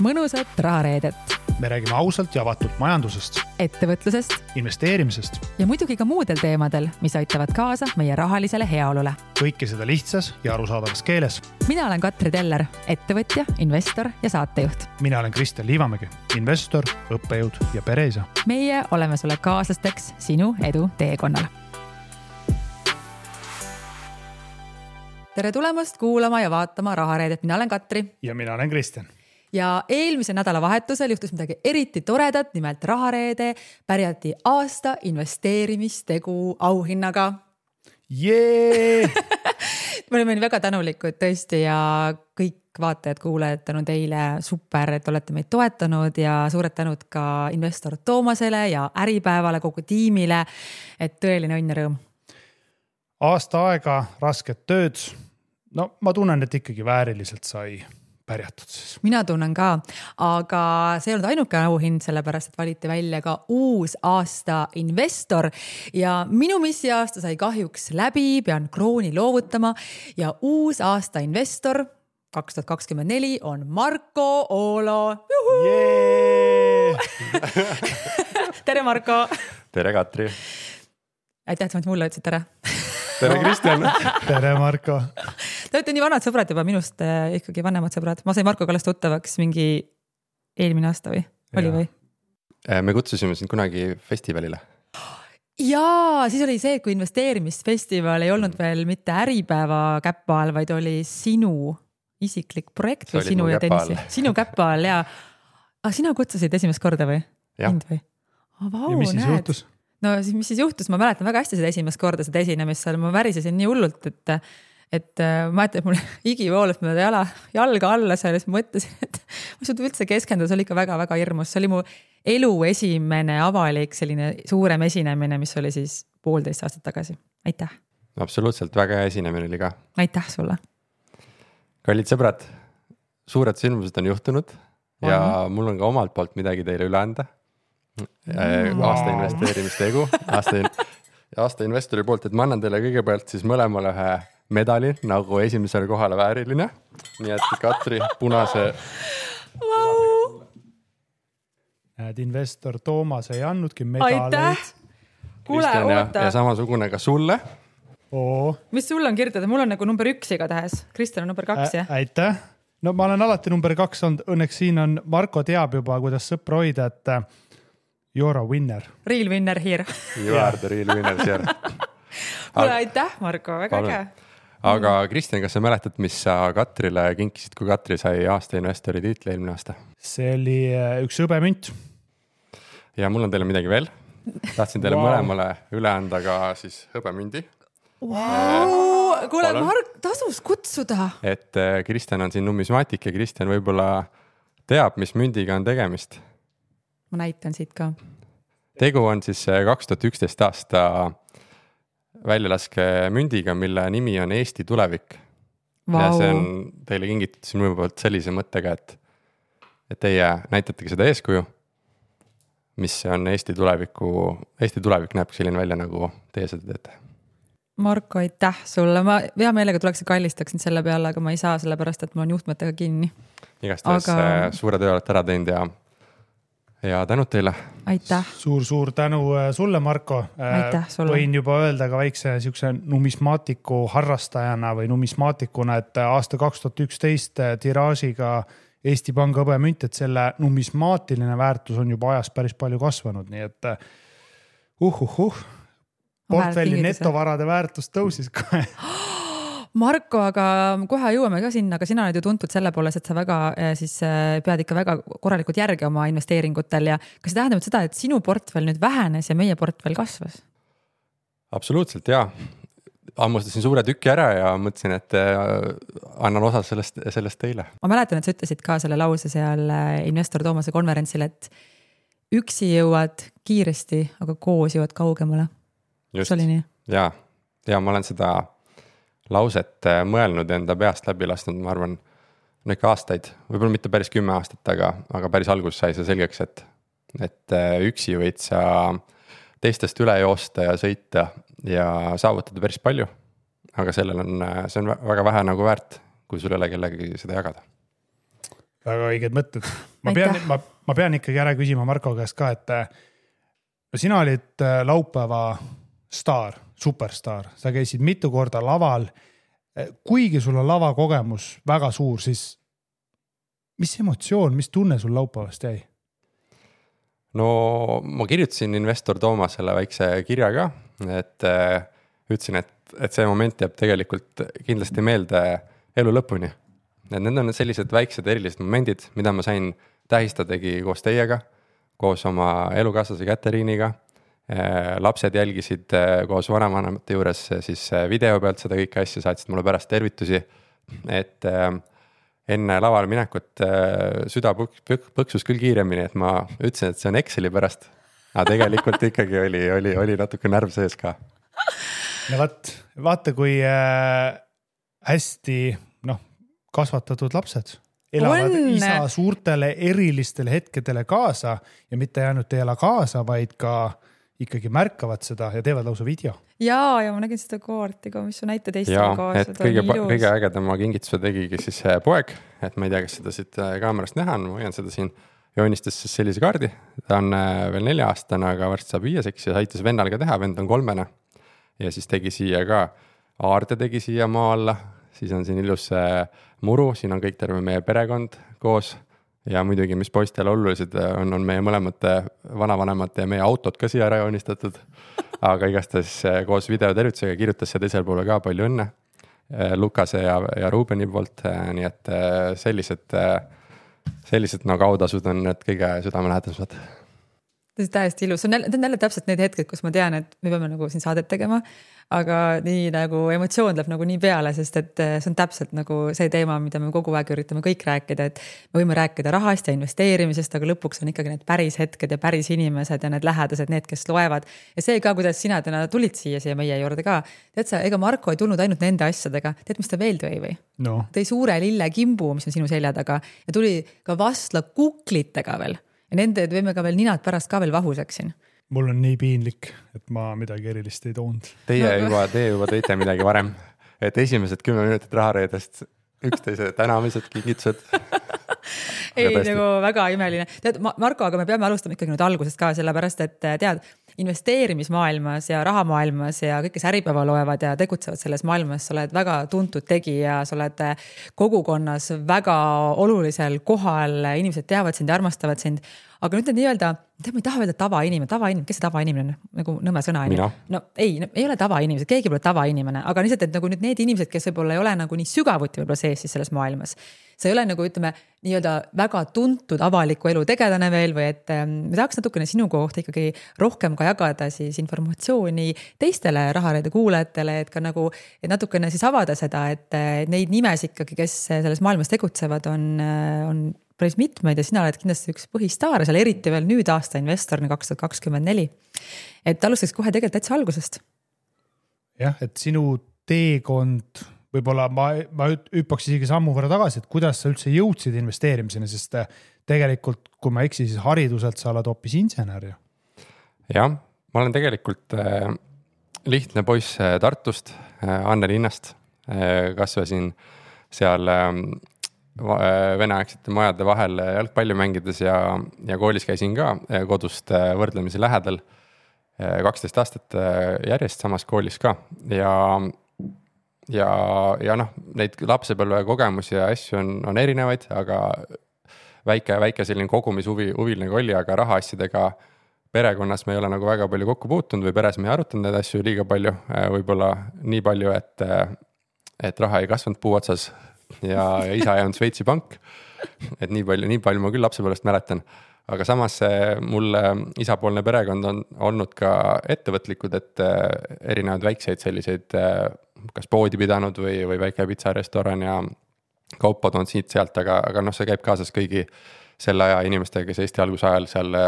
mõnusat rahareedet. Me räägime ausalt ja avatult majandusest, ettevõtlusest investeerimisest ja muidugi ka muudel teemadel, mis aitavad kaasa meie rahalisele heaolule. kõike seda lihtsas ja arusaadavas keeles. Mina olen Katri Teller, ettevõtja, investor ja saatejuht. Mina olen Kristjan Liivamägi, investor, õppejõud ja pereisa. Meie oleme sulle kaaslasteks sinu edu teekonnal. Tere tulemast kuulama ja vaatama rahareedet. Mina olen Katri. Ja mina olen Kristjan. Ja eelmise nädala vahetusel juhtus midagi eriti toredat, nimelt rahareede pärjati aasta investeerimistegu auhinnaga. Jee! Me olime väga tänulikud tõesti ja kõik vaatajad, kuulajad tänu teile super, et olete meid toetanud ja suured tänud ka investor Toomasele ja Äripäevale, kogu tiimile, et tõeline õnn ja rõõm. Aasta aega, rasket tööd. No ma tunnen, et ikkagi vääriliselt sai pärjatud siis. Mina tunnen ka, aga see ei olnud ainuke auhind, sellepärast, et valiti välja ka uus aasta investor ja minu missiaasta sai kahjuks läbi, pean krooni loovutama ja uus aasta investor 2024 on Marko Oolo. Tere, Marko! Tere, Katri! Aitäh, et mulle ütlesid tere! Tere, Kristjan! Tere, Marko! Te olete nii vanad sõbrad juba, minust ikkagi vanemad sõbrad. Ma sain Marko Kallast tuttavaks mingi eelmine aasta või? Oli või? Me kutsusime sind kunagi festivalile. Jaa, siis oli see, kui investeerimisfestival ei olnud veel mitte Äripäeva käppa all, vaid oli sinu isiklik projekt või sinu ja Tõnissi. Sinu käppa all, jaa. Sina kutsusid esimest korda või? Jah. Ja mis siis juhtus? No mis siis juhtus? Ma mäletan väga hästi seda esimest korda, seda esinemist seal. Ma värisesin nii hullult, et ma ütlen, et mul igivoolas mööda jalga alla seal ja siis mõtlesin, et ma suud üldse keskenduda, see oli ikka väga-väga hirmus. See oli mu elu esimene avalik selline suurem esinemine, mis oli siis 1,5 aastat tagasi. Aitäh! Absoluutselt, väga hea esinemine oli ka. Aitäh sulle! Kallid sõbrad, suured sündmused on juhtunud ja mul on ka omalt poolt midagi teile üle anda. Aasta investeerimistegu, aasta investori poolt, et ma annan teile kõigepealt siis mõlemale ühe medali, nagu esimesele kohale vääriline. Nii et Katri punase. Näed, investor Toomas ei andnudki medaleid. Aitäh! Kuule, oota. Ja samasugune ka sulle. Mis sul on kirjutada? Mul on nagu number 1 igatahes. Kristjan on number 2, jah? Aitäh! No ma olen alati number 2 olnud. Õnneks siin on, Marko teab juba, kuidas sõpra hoida, et you're a winner. Real winner here. You are the real winner here. Kuule, aitäh, Marko, väga äge. Aga Kristjan, kas sa mäletad, mis sa Katrile kinkisid, kui Katri sai aasta investori tiitli eelmine aasta? See oli üks hõbemünt. Ja mul on teile midagi veel. Tahtsin teile mõlemale üle anda ka siis hõbemündi. Kuule, Mark, tasus kutsuda. Et Kristjan on siin numismaatik ja Kristjan võib-olla teab, mis mündiga on tegemist. Ma näitan siit ka. Tegu on siis 2011 aasta väljalaske mündiga, mille nimi on Eesti tulevik. Ja see on teile kingitud siin minu poolt sellise mõttega, et teie näitategi seda eeskuju, mis on Eesti tulevik näeb selline välja, nagu teie seda teete. Marko, aitäh sulle. Ma hea meelega tuleks kallistaksin selle peale, aga ma ei saa sellepärast, et mul on juhtmetega kinni. Igastahes suure töö olete ära teinud ja tänud teile. Aitäh. Suur tänu sulle, Marko. Aitäh sulle. Võin juba öelda ka väikse numismaatiku harrastajana või numismaatikuna, et aasta 2011 tiraažiga Eesti Panga hõbemünt, et selle numismaatiline väärtus on juba ajas päris palju kasvanud, nii et portfelli netovarade väärtus tõusis kohe. Marko, aga kohe jõuame ka sinna, aga sina oled ju tuntud selle poolest, et sa väga siis pead ikka väga korralikult järgi oma investeeringutel ja kas see tähendab seda, et sinu portfell nüüd vähenes ja meie portfell kasvas? Absoluutselt, jaa. Ammustasin suure tüki ära ja mõtlesin, et annan osa sellest teile. Ma mäletan, et sa ütlesid ka selle lause seal investor Toomase konverentsil, et üksi jõuad kiiresti, aga koos jõuad kaugemale. Just, see oli nii? Ja ma olen seda lauset mõelnud enda peast läbi lasnud, ma arvan, ikka aastaid, võib-olla mitte päris 10 aastat, aga päris alguses sai see selgeks, et üksi võid sa teistest üle joosta ja sõita ja saavutada päris palju, aga see on väga vähe nagu väärt, kui sul ei ole kellegi seda jagada. väga õiged mõtted. Ma pean ikkagi ära küsima Marko käest ka, et sina olid laupäeva staar, superstaar, sa käisid mitu korda laval. Kuigi sul on lavakogemus väga suur, siis mis emotsioon, mis tunne sul laupäevast jäi? No ma kirjutasin investor Toomasele väikse kirja ka, et ütlesin, et see moment jääb tegelikult kindlasti meelde elu lõpuni. Et need on sellised väiksed erilised momendid, mida ma sain tähistadagi koos teiega, koos oma elukaaslase Käteriiniga. Lapsed jälgisid koos vanavanemate juures siis video pealt seda kõike asja, saatsid mulle pärast tervitusi, et enne lavale minekut süda põksus küll kiiremini, et ma ütlesin, et see on Exceli pärast, aga tegelikult ikkagi oli natuke närv sees ka. No vaata kui hästi kasvatatud lapsed elavad isa suurtele erilistele hetkedele kaasa ja mitte ainult ei ela kaasa, vaid ka ikkagi märkavad seda ja teevad lausa video. Ja ma nägin seda koorti ka, mis su näite teistele kaasa. Et kõige ägedama kingituse tegigi siis poeg, et ma ei tea, kas seda siit kaamerast näha on, ma hoian seda siin, joonistas siis sellise kaardi, ta on veel 4-aastane, aga varsti saab 5-seks ja aitas vennal ka teha, vend on 3. Ja siis tegi siia ka, aarde tegi siia maa alla, siis on siin ilus muru, siin on kõik terve meie perekond koos ja muidugi, mis poistele olulised on meie mõlemate vanavanemate ja meie autod ka siia ära joonistatud, aga igastahes koos videotervitusega kirjutas see teisel poole ka palju õnne Lukase ja Ruubeni poolt, nii et sellised autasud on need kõige südamelähedased. See on täiesti ilus, see on jälle täpselt need hetked, kus ma tean, et me peame nagu siin saadet tegema, aga nii nagu emotsioon läheb nagu nii peale, sest et see on täpselt nagu see teema, mida me kogu aeg üritame kõik rääkida, et me võime rääkida rahast ja investeerimisest, aga lõpuks on ikkagi need päris hetked ja päris inimesed ja need lähedased, need, kes loevad. Ja see ka, kuidas sina täna tulid siia meie juurde ka. Tead sa, ega Marko ei tulnud ainult nende asjadega, tead, mis ta veel tõi või? No. Tõi suure lille kimbu, mis on sinu selja taga ja tuli ka vastla kuklitega veel. Ja nende võime ka veel ninad pärast ka veel vahuseks siin. Mul on nii piinlik, et ma midagi erilist ei toonud. Teie juba tõite midagi varem, et esimesed 10 minutit rahareedest üksteise tänamised, kingitused. Ei, nagu väga imeline. Tead, Marko, aga me peame alustama ikkagi nüüd algusest ka, sellepärast, et tead, investeerimismaailmas ja rahamaailmas ja kõik, kes äripäeva loevad ja tegutsevad selles maailmas, sa oled väga tuntud tegija, sa oled kogukonnas väga olulisel kohal, inimesed teavad sind ja armastavad sind. Aga nüüd nii-öelda, ma ei taha öelda tavainimene, kes see tavainimene on? Nagu nõme sõna. No ei ole tavainimesed, keegi pole tavainimene, aga lihtsalt, et nagu nüüd need inimesed, kes võib-olla ei ole nagu nii sügavuti võib-olla sees siis selles maailmas. See ei ole nagu, ütleme, nii-öelda väga tuntud avaliku elu tegelane veel või et me tahaks natukene sinu kohta ikkagi rohkem ka jagada siis informatsiooni teistele rahareede kuulajatele, et ka nagu et natukene siis avada seda, et neid nimes ikkagi, kes selles maailmas tegutsevad, on päris mitmeid ja sina oled kindlasti üks põhistaar, seal eriti veel nüüd aasta investorina 2024. Et alustaks kohe tegelikult täitsa algusest. Jah, et sinu teekond, võib-olla ma hüppaks isegi sammu võrra tagasi, et kuidas sa üldse jõudsid investeerimiseni, sest tegelikult, kui ma eksi, siis hariduselt sa oled hoopis insener. Jah, ma olen tegelikult lihtne poiss Tartust, Anne linnast, kasvasin seal veneaegsete majade vahel jalgpalli mängides ja koolis käisin ka kodust võrdlemisi lähedal 12 aastat järjest samas koolis ka ja neid lapsepõlve kogemusi ja asju on erinevaid, aga väike selline kogumishuviline oli, aga rahaasjadega perekonnas me ei ole nagu väga palju kokku puutunud või peres me ei arutanud neid asju liiga palju, võib-olla nii palju, et raha ei kasvanud puu otsas ja isa ei olnud Šveitsi pank, et nii palju ma küll lapsepõlvest mäletan, aga samas mul isapoolne perekond on olnud ka ettevõtlikud, et erinevad väikseid selliseid kas poodi pidanud või väike pitsarestoran ja kaupad on siit-sealt, aga see käib kaasas kõigi selle aja inimestega, kes Eesti alguse ajal seal,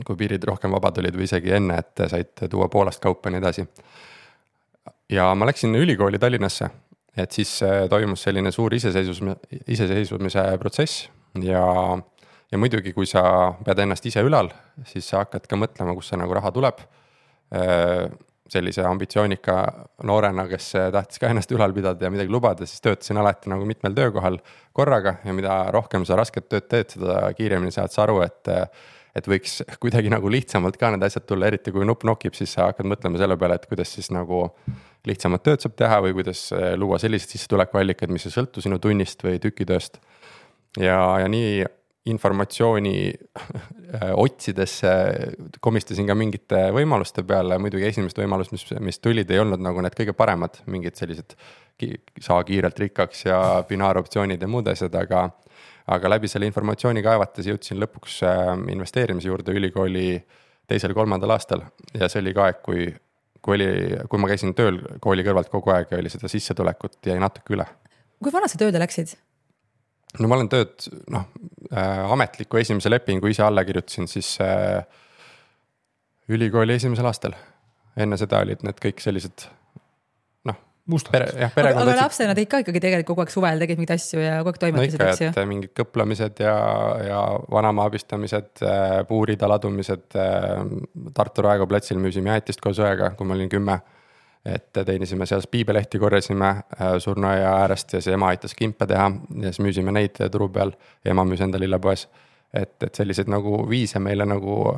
kui piirid rohkem vabad olid või isegi enne, et said tuua Poolast kaupa nii edasi. Ja ma läksin ülikooli Tallinnasse, et siis toimus selline suur iseseisvumise protsess ja muidugi, kui sa pead ennast ise ülal, siis sa hakkad ka mõtlema, kus see nagu raha tuleb. sellise ambitsioonika noorena, kes tahtis ka ennast ülal pidada ja midagi lubada, siis töötasin alati nagu mitmel töökohal korraga ja mida rohkem sa rasket tööd teed, seda kiiremini saad sa aru, et võiks kuidagi nagu lihtsamalt ka need asjad tulla, eriti kui nupp nokib, siis sa hakkad mõtlema selle peale, et kuidas siis nagu lihtsamat tööd saab teha või kuidas luua sellised sissetulekuallikad, mis ei sõltu sinu tunnist või tükitööst. Ja nii informatsiooni otsides komistasin ka mingite võimaluste peale, muidugi esimest võimalust, mis tulid, ei olnud nagu need kõige paremad, mingid sellised saa kiirelt rikkaks ja binaaroptsioonid ja muud asjad, aga läbi selle informatsiooni kaevates jõudsin lõpuks investeerimise juurde ülikooli 2.-3. aastal ja see oli ka aeg, kui ma käisin tööl kooli kõrvalt kogu aeg ja oli seda sissetulekut jäi natuke üle. Kui vana sa tööle läksid? No ma olen tööd, ametliku esimese lepingu ise alla kirjutasin siis ülikooli 1. aastal. Enne seda olid need kõik sellised aga lapsena tegid ka ikkagi tegelikult kogu aeg suvel tegid mingid asju ja kogu aeg toimetasid, eks ju? Mingid kõplamised ja vanama abistamised, puurida ladumised, Tartu Raekoja platsil müüsime jäätist koos õega, kui ma olin 10. Et teenisime seal piibelehti, korjasime surnuaia äärest ja see ema aitas kimpe teha ja siis müüsime neid turu peal ja ema müüs enda lillepoes. Et sellised nagu viise meile nagu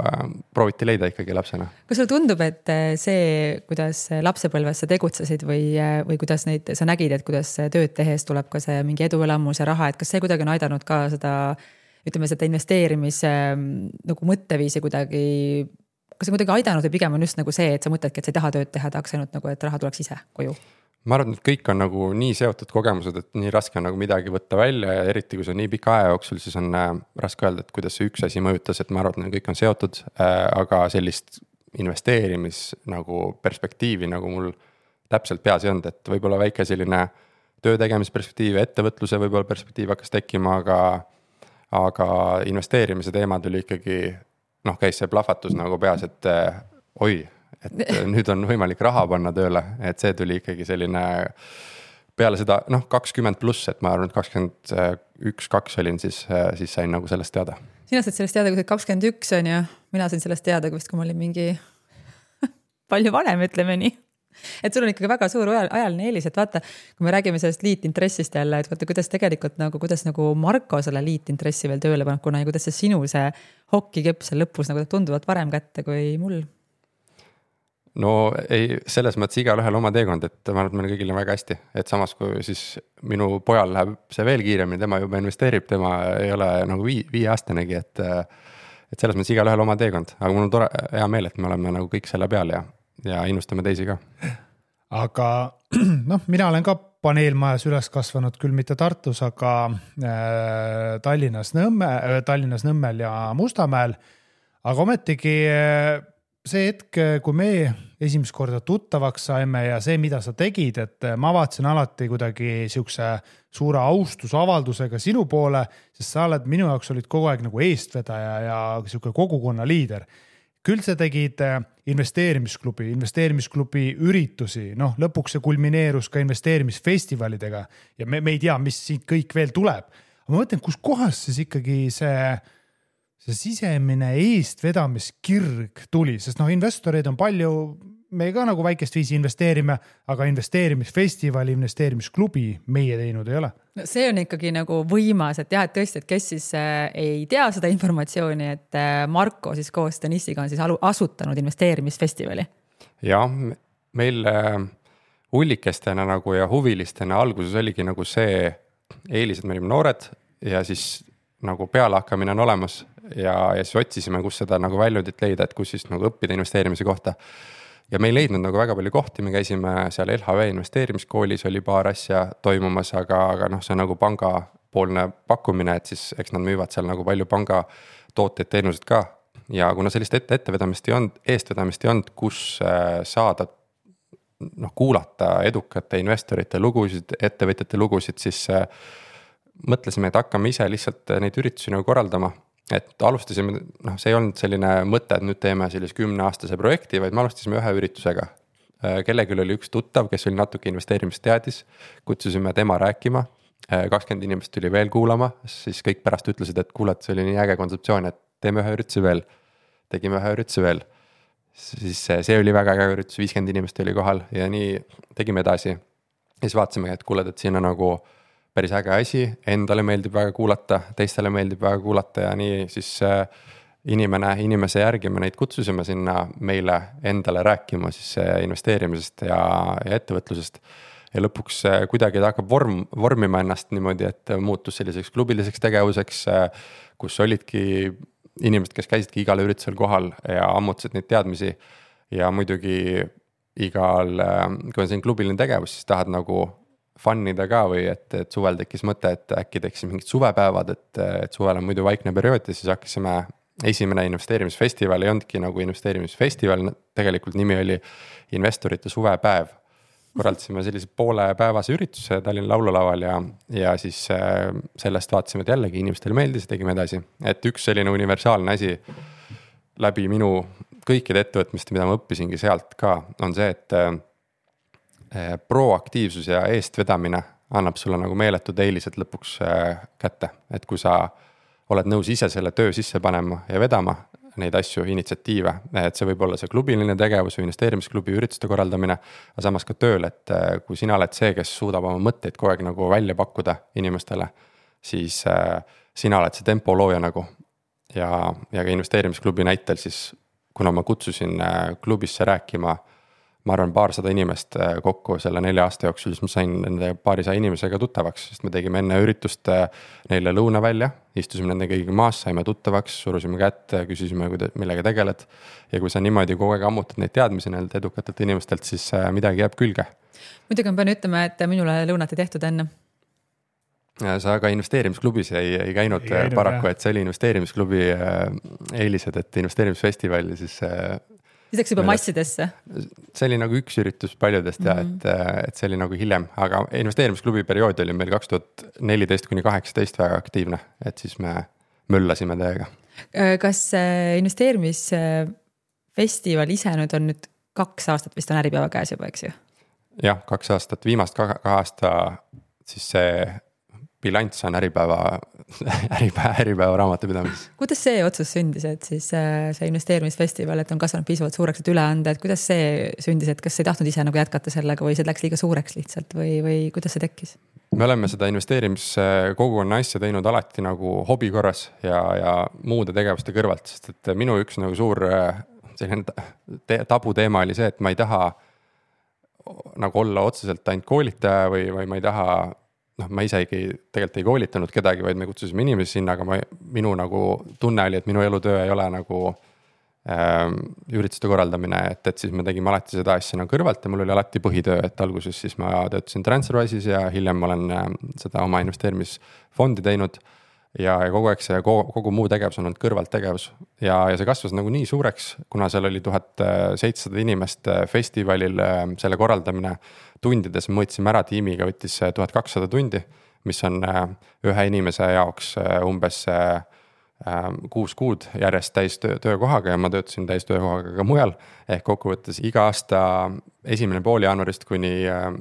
prooviti leida ikkagi lapsena. Kas sulle tundub, et see, kuidas lapsepõlves sa tegutsesid või kuidas neid sa nägid, et kuidas tööd tehes tuleb ka see mingi eduelamus ja raha, et kas see kuidagi on aidanud ka seda, ütleme, seda investeerimise nagu mõtteviisi kuidagi, kas see kuidagi aidanud või pigem on just nagu see, et sa mõtledki, et sa ei taha tööd teha, tahaks ainult nagu, et raha tuleks ise koju? Ma arvan, et kõik on nagu nii seotud kogemused, et nii raske on nagu midagi võtta välja ja eriti kui see on nii pika aja jooksul, siis on raske öelda, et kuidas see üks asi mõjutas, et ma arvan, et kõik on seotud, aga sellist investeerimis nagu perspektiivi nagu mul täpselt peas ei olnud, et võib-olla väike selline töö tegemisperspektiiv, ettevõtluse võib-olla perspektiiv hakkas tekkima, aga investeerimise teema tuli ikkagi, käis see plahvatus nagu peas, et et nüüd on võimalik raha panna tööle, et see tuli ikkagi selline peale seda 20 pluss, et ma arvan, et 21-2 olin, siis sain nagu sellest teada. Sina said sellest teada, kui sa 21 on ja mina sain sellest teada, kui ma olin mingi palju vanem, ütleme nii. Et sul on ikkagi väga suur ajaline eelis, et vaata, kui me räägime sellest liitintressist jälle, et vaata, kuidas tegelikult kuidas Marko selle liitintressi veel tööle paneb, kuna ja kuidas see sinu see hokikepp seal lõpus nagu tunduvalt varem kätte kui mul. No ei, selles mõttes igal ühel oma teekond, et ma arvan, et meil kõigil on väga hästi, et samas kui siis minu pojal läheb see veel kiiremini, tema juba investeerib, tema ei ole nagu 5-aastanegi, et selles mõttes igal ühel oma teekond, aga mul on hea meel, et me oleme nagu kõik selle peal ja innustame teisi ka. Aga mina olen ka paneelmajas üles kasvanud, küll mitte Tartus, aga Tallinnas Nõmmel ja Mustamäel, aga ometigi see hetk, kui me esimest korda tuttavaks saime ja see, mida sa tegid, et ma vaatasin alati kuidagi siukse suure austusavaldusega sinu poole, sest sa oled minu jaoks olid kogu aeg nagu eestvedaja ja siuke kogukonna liider. Küll sa tegid investeerimisklubi üritusi, lõpuks see kulmineerus ka investeerimisfestivalidega ja me ei tea, mis siit kõik veel tuleb. Aga ma mõtlen, kus kohas siis ikkagi see sisemine eestvedamiskirg tuli, sest investoreid on palju, me ka nagu väikest viisi investeerime, aga investeerimisfestivali, investeerimisklubi meie teinud ei ole. See on ikkagi nagu võimas, et jah, et tõesti, et kes siis ei tea seda informatsiooni, et Marko siis koos Denissiga on siis asutanud investeerimisfestivali. Ja meil hullikestena nagu ja huvilistena alguses oligi nagu see eelis, et me olime noored ja siis nagu pealehakkamine on olemas ja siis otsisime, kus seda nagu väljundit leida, et kus siis nagu õppida investeerimise kohta. Ja me ei leidnud nagu väga palju kohti, me käisime seal LHV investeerimiskoolis, oli paar asja toimumas, aga see on nagu pangapoolne pakkumine, et siis eks nad müüvad seal nagu palju panga tooteid, teenused ka. Ja kuna sellist eestvedamist ei olnud, kus saada kuulata edukate investorite lugusid, ettevõtjate lugusid, siis mõtlesime, et hakkame ise lihtsalt neid üritusi nagu korraldama. Et alustasime, see ei olnud selline mõte, et nüüd teeme sellise 10-aastase projekti, vaid me alustasime ühe üritusega. Kellegil oli üks tuttav, kes oli natuke investeerimist teadis, kutsusime tema rääkima, 20 inimest tuli veel kuulama, siis kõik pärast ütlesid, et kuuled, see oli nii äge kontseptsioon, et teeme ühe ürituse veel, tegime ühe ürituse veel. siis see oli väga äge üritus, 50 inimest oli kohal ja nii tegime edasi. Ja siis vaatasime, et kuuled, et siin on nagu päris äge asi, endale meeldib väga kuulata, teistele meeldib väga kuulata ja nii siis inimese järgi me neid kutsusime sinna meile endale rääkima siis investeerimisest ja ettevõtlusest. Ja lõpuks kuidagi ta hakkab vormima ennast niimoodi, et muutus selliseks klubiliseks tegevuseks, kus olidki inimesed, kes käisidki igal üritusel kohal ja ammutasid neid teadmisi. Ja muidugi igal, kui on siin klubiline tegevus, siis tahad nagu fannida ka või et suvel tekkis mõte, et äkki tekkis mingid suvepäevad, et suvel on muidu vaikne periood ja siis hakkasime esimene investeerimisfestival ei olnudki nagu investeerimisfestival, tegelikult nimi oli investorite suvepäev. Korraldasime sellise poolepäevase ürituse Tallinna laululaval ja siis sellest vaatasime, et jällegi inimestele meeldis ja tegime edasi. Et üks selline universaalne asi läbi minu kõikide ettevõtmiste, mida ma õppisingi sealt ka, on see, et proaktiivsus ja eestvedamine annab sulle nagu meeletud eelised lõpuks kätte. Et kui sa oled nõus ise selle töö sisse panema ja vedama neid asju, initsiatiive, et see võib olla see klubiline tegevus või investeerimisklubi ürituste korraldamine, aga samas ka tööl, et kui sina oled see, kes suudab oma mõtteid kogu aeg nagu välja pakkuda inimestele, siis sina oled see tempo looja nagu ja ka investeerimisklubi näitel siis, kuna ma kutsusin klubisse rääkima, ma arvan 200 inimest kokku selle 4 aasta jooksul, siis ma sain nende 200 inimesega tuttavaks, sest me tegime enne üritust neile lõuna välja, istusime nende kõigiga maas, saime tuttavaks, surusime kätte, küsisime, millega tegeled. Ja kui sa niimoodi kogu aeg ammutad neid teadmisi neilt edukatelt inimestelt, siis midagi jääb külge. Muidugi ma pean ütlema, et minule lõunat ei tehtud enne. Sa ka investeerimisklubis ei käinud paraku, et see oli investeerimisklubi eelised, et investeerimisfestival siis läks juba massidesse. See oli nagu üks üritus paljudest ja et see oli nagu hiljem, aga investeerimisklubi periood oli meil 2014–2018 väga aktiivne, et siis me möllasime täiega. Kas investeerimisfestival ise nüüd on nüüd 2 aastat vist on Äripäeva käes juba, eks ju? Jah, 2 aastat, viimast 2 aasta siis see bilanss on Äripäeva raamatupidamises. Kuidas see otsus sündis, et siis see investeerimisfestival, et on kasvanud piisavalt suureks, et üle anda, et kuidas see sündis, et kas ei tahtnud ise nagu jätkata sellega või see läks liiga suureks lihtsalt või kuidas see tekkis? Me oleme seda investeerimiskogukonna asja teinud alati nagu hobi korras ja muude tegevuste kõrvalt, sest et minu üks nagu suur tabuteema oli see, et ma ei taha nagu olla otseselt ainult koolitaja või ma ei taha ma isegi tegelikult ei koolitanud kedagi, vaid me kutsusime inimesi sinna, aga minu nagu tunne oli, et minu elutöö ei ole nagu ürituste korraldamine, et siis me tegime alati seda asja nagu kõrvalt ja mul oli alati põhitöö, et alguses siis ma töötasin TransferWise'is ja hiljem ma olen seda oma investeerimisfondi teinud ja kogu aeg see kogu muu tegevus on olnud kõrvalt tegevus ja see kasvas nagu nii suureks, kuna seal oli 1700 inimest festivalil selle korraldamine tundides, mõõtsime ära tiimiga, võttis 1200 tundi, mis on ühe inimese jaoks umbes 6 kuud järjest täis töökohaga ja ma töötasin täis töökohaga ka mujal. Ehk kokkuvõttes iga aasta 1. pool jaanuarist kuni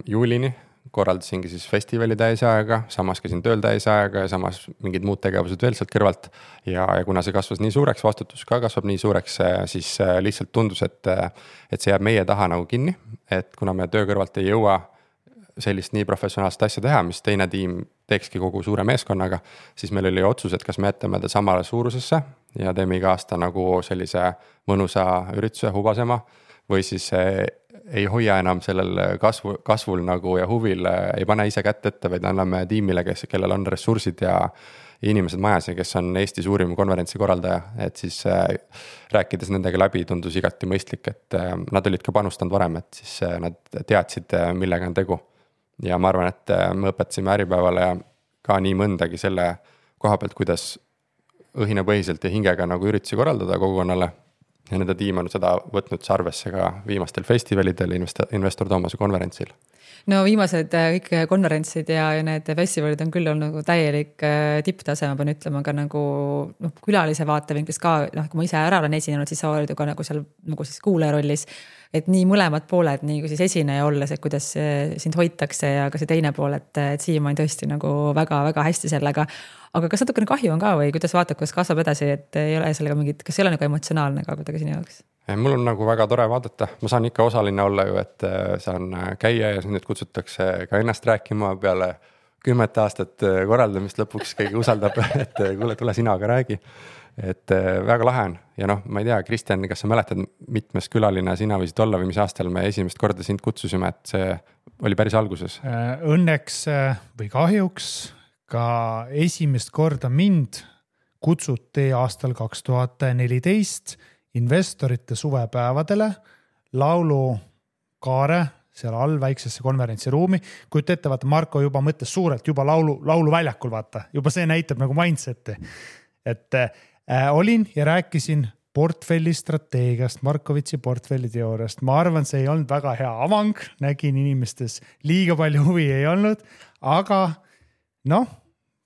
juulini korraldasingi siis festivali täisajaga, samas käisin tööl täisajaga ja samas mingid muud tegevused veel sealt kõrvalt. Ja kuna see kasvas nii suureks, vastutus ka kasvab nii suureks, siis lihtsalt tundus, et see jääb meie taha nagu kinni. Et kuna me töö kõrvalt ei jõua sellist nii professionaalset asja teha, mis teine tiim teekski kogu suure meeskonnaga, siis meil oli otsus, et kas me jätame ta samale suurusesse ja teeme iga aasta nagu sellise mõnusa ürituse hubasema või siis ei hoia enam sellel kasvul nagu ja huvil, ei pane ise kätt ette, vaid anname tiimile, kellel on ressursid ja inimesed majas ja kes on Eesti suurim konverentsi korraldaja, et siis rääkides nendega läbi tundus igati mõistlik, et nad olid ka panustanud varem, et siis nad teadsid, millega on tegu. Ja ma arvan, et me õpetasime Äripäevale ka nii mõndagi selle koha pealt, kuidas õhinapõhiselt ja hingega nagu üritusi korraldada kogukonnale. Ja nende tiim on seda võtnud arvesse ka viimastel festivalidel Investor Toomase konverentsil. No viimased kõik konverentsid ja need festivalid on küll olnud nagu täielik tipptase, ma pean ütlema ka nagu külalise vaatevinklist ka, kui ma ise ära olen esinenud, siis sa oled ju ka nagu seal nagu siis kuulaja rollis, et nii mõlemad pooled, nii kui siis esineja olles, et kuidas sind hoitakse ja ka see teine pool, et siiamaani tõesti nagu väga-väga hästi sellega. Aga kas natukene kahju on ka või kuidas vaatad, kuidas kasvab edasi, et ei ole sellega mingit, kas ei ole nagu emotsionaalne ka kuidagi sinu jaoks? Mul on nagu väga tore vaadata, ma saan ikka osaline olla ju, et saan käia ja nüüd kutsutakse ka ennast rääkima peale 10 aastat korraldamist, lõpuks keegi usaldab, et kuule, tule sina ka räägi. Et väga lahe on ja noh, ma ei tea, Kristjan, kas sa mäletad, mitmes külaline sina võisid olla või mis aastal me esimest korda sind kutsusime, et see oli päris alguses? Õnneks või kahjuks ka esimest korda mind kutsuti aastal 2014 investorite suvepäevadele laulukaare seal all väiksesse konverentsiruumi. Kuid ette, vaata, Marko juba mõtles suurelt, juba lauluväljakul, vaata, juba see näitab nagu mindseti. Et olin ja rääkisin portfelli strateegiast, Markovitsi portfelli teooriast. Ma arvan, see ei olnud väga hea avang, nägin inimestes liiga palju huvi ei olnud, aga noh,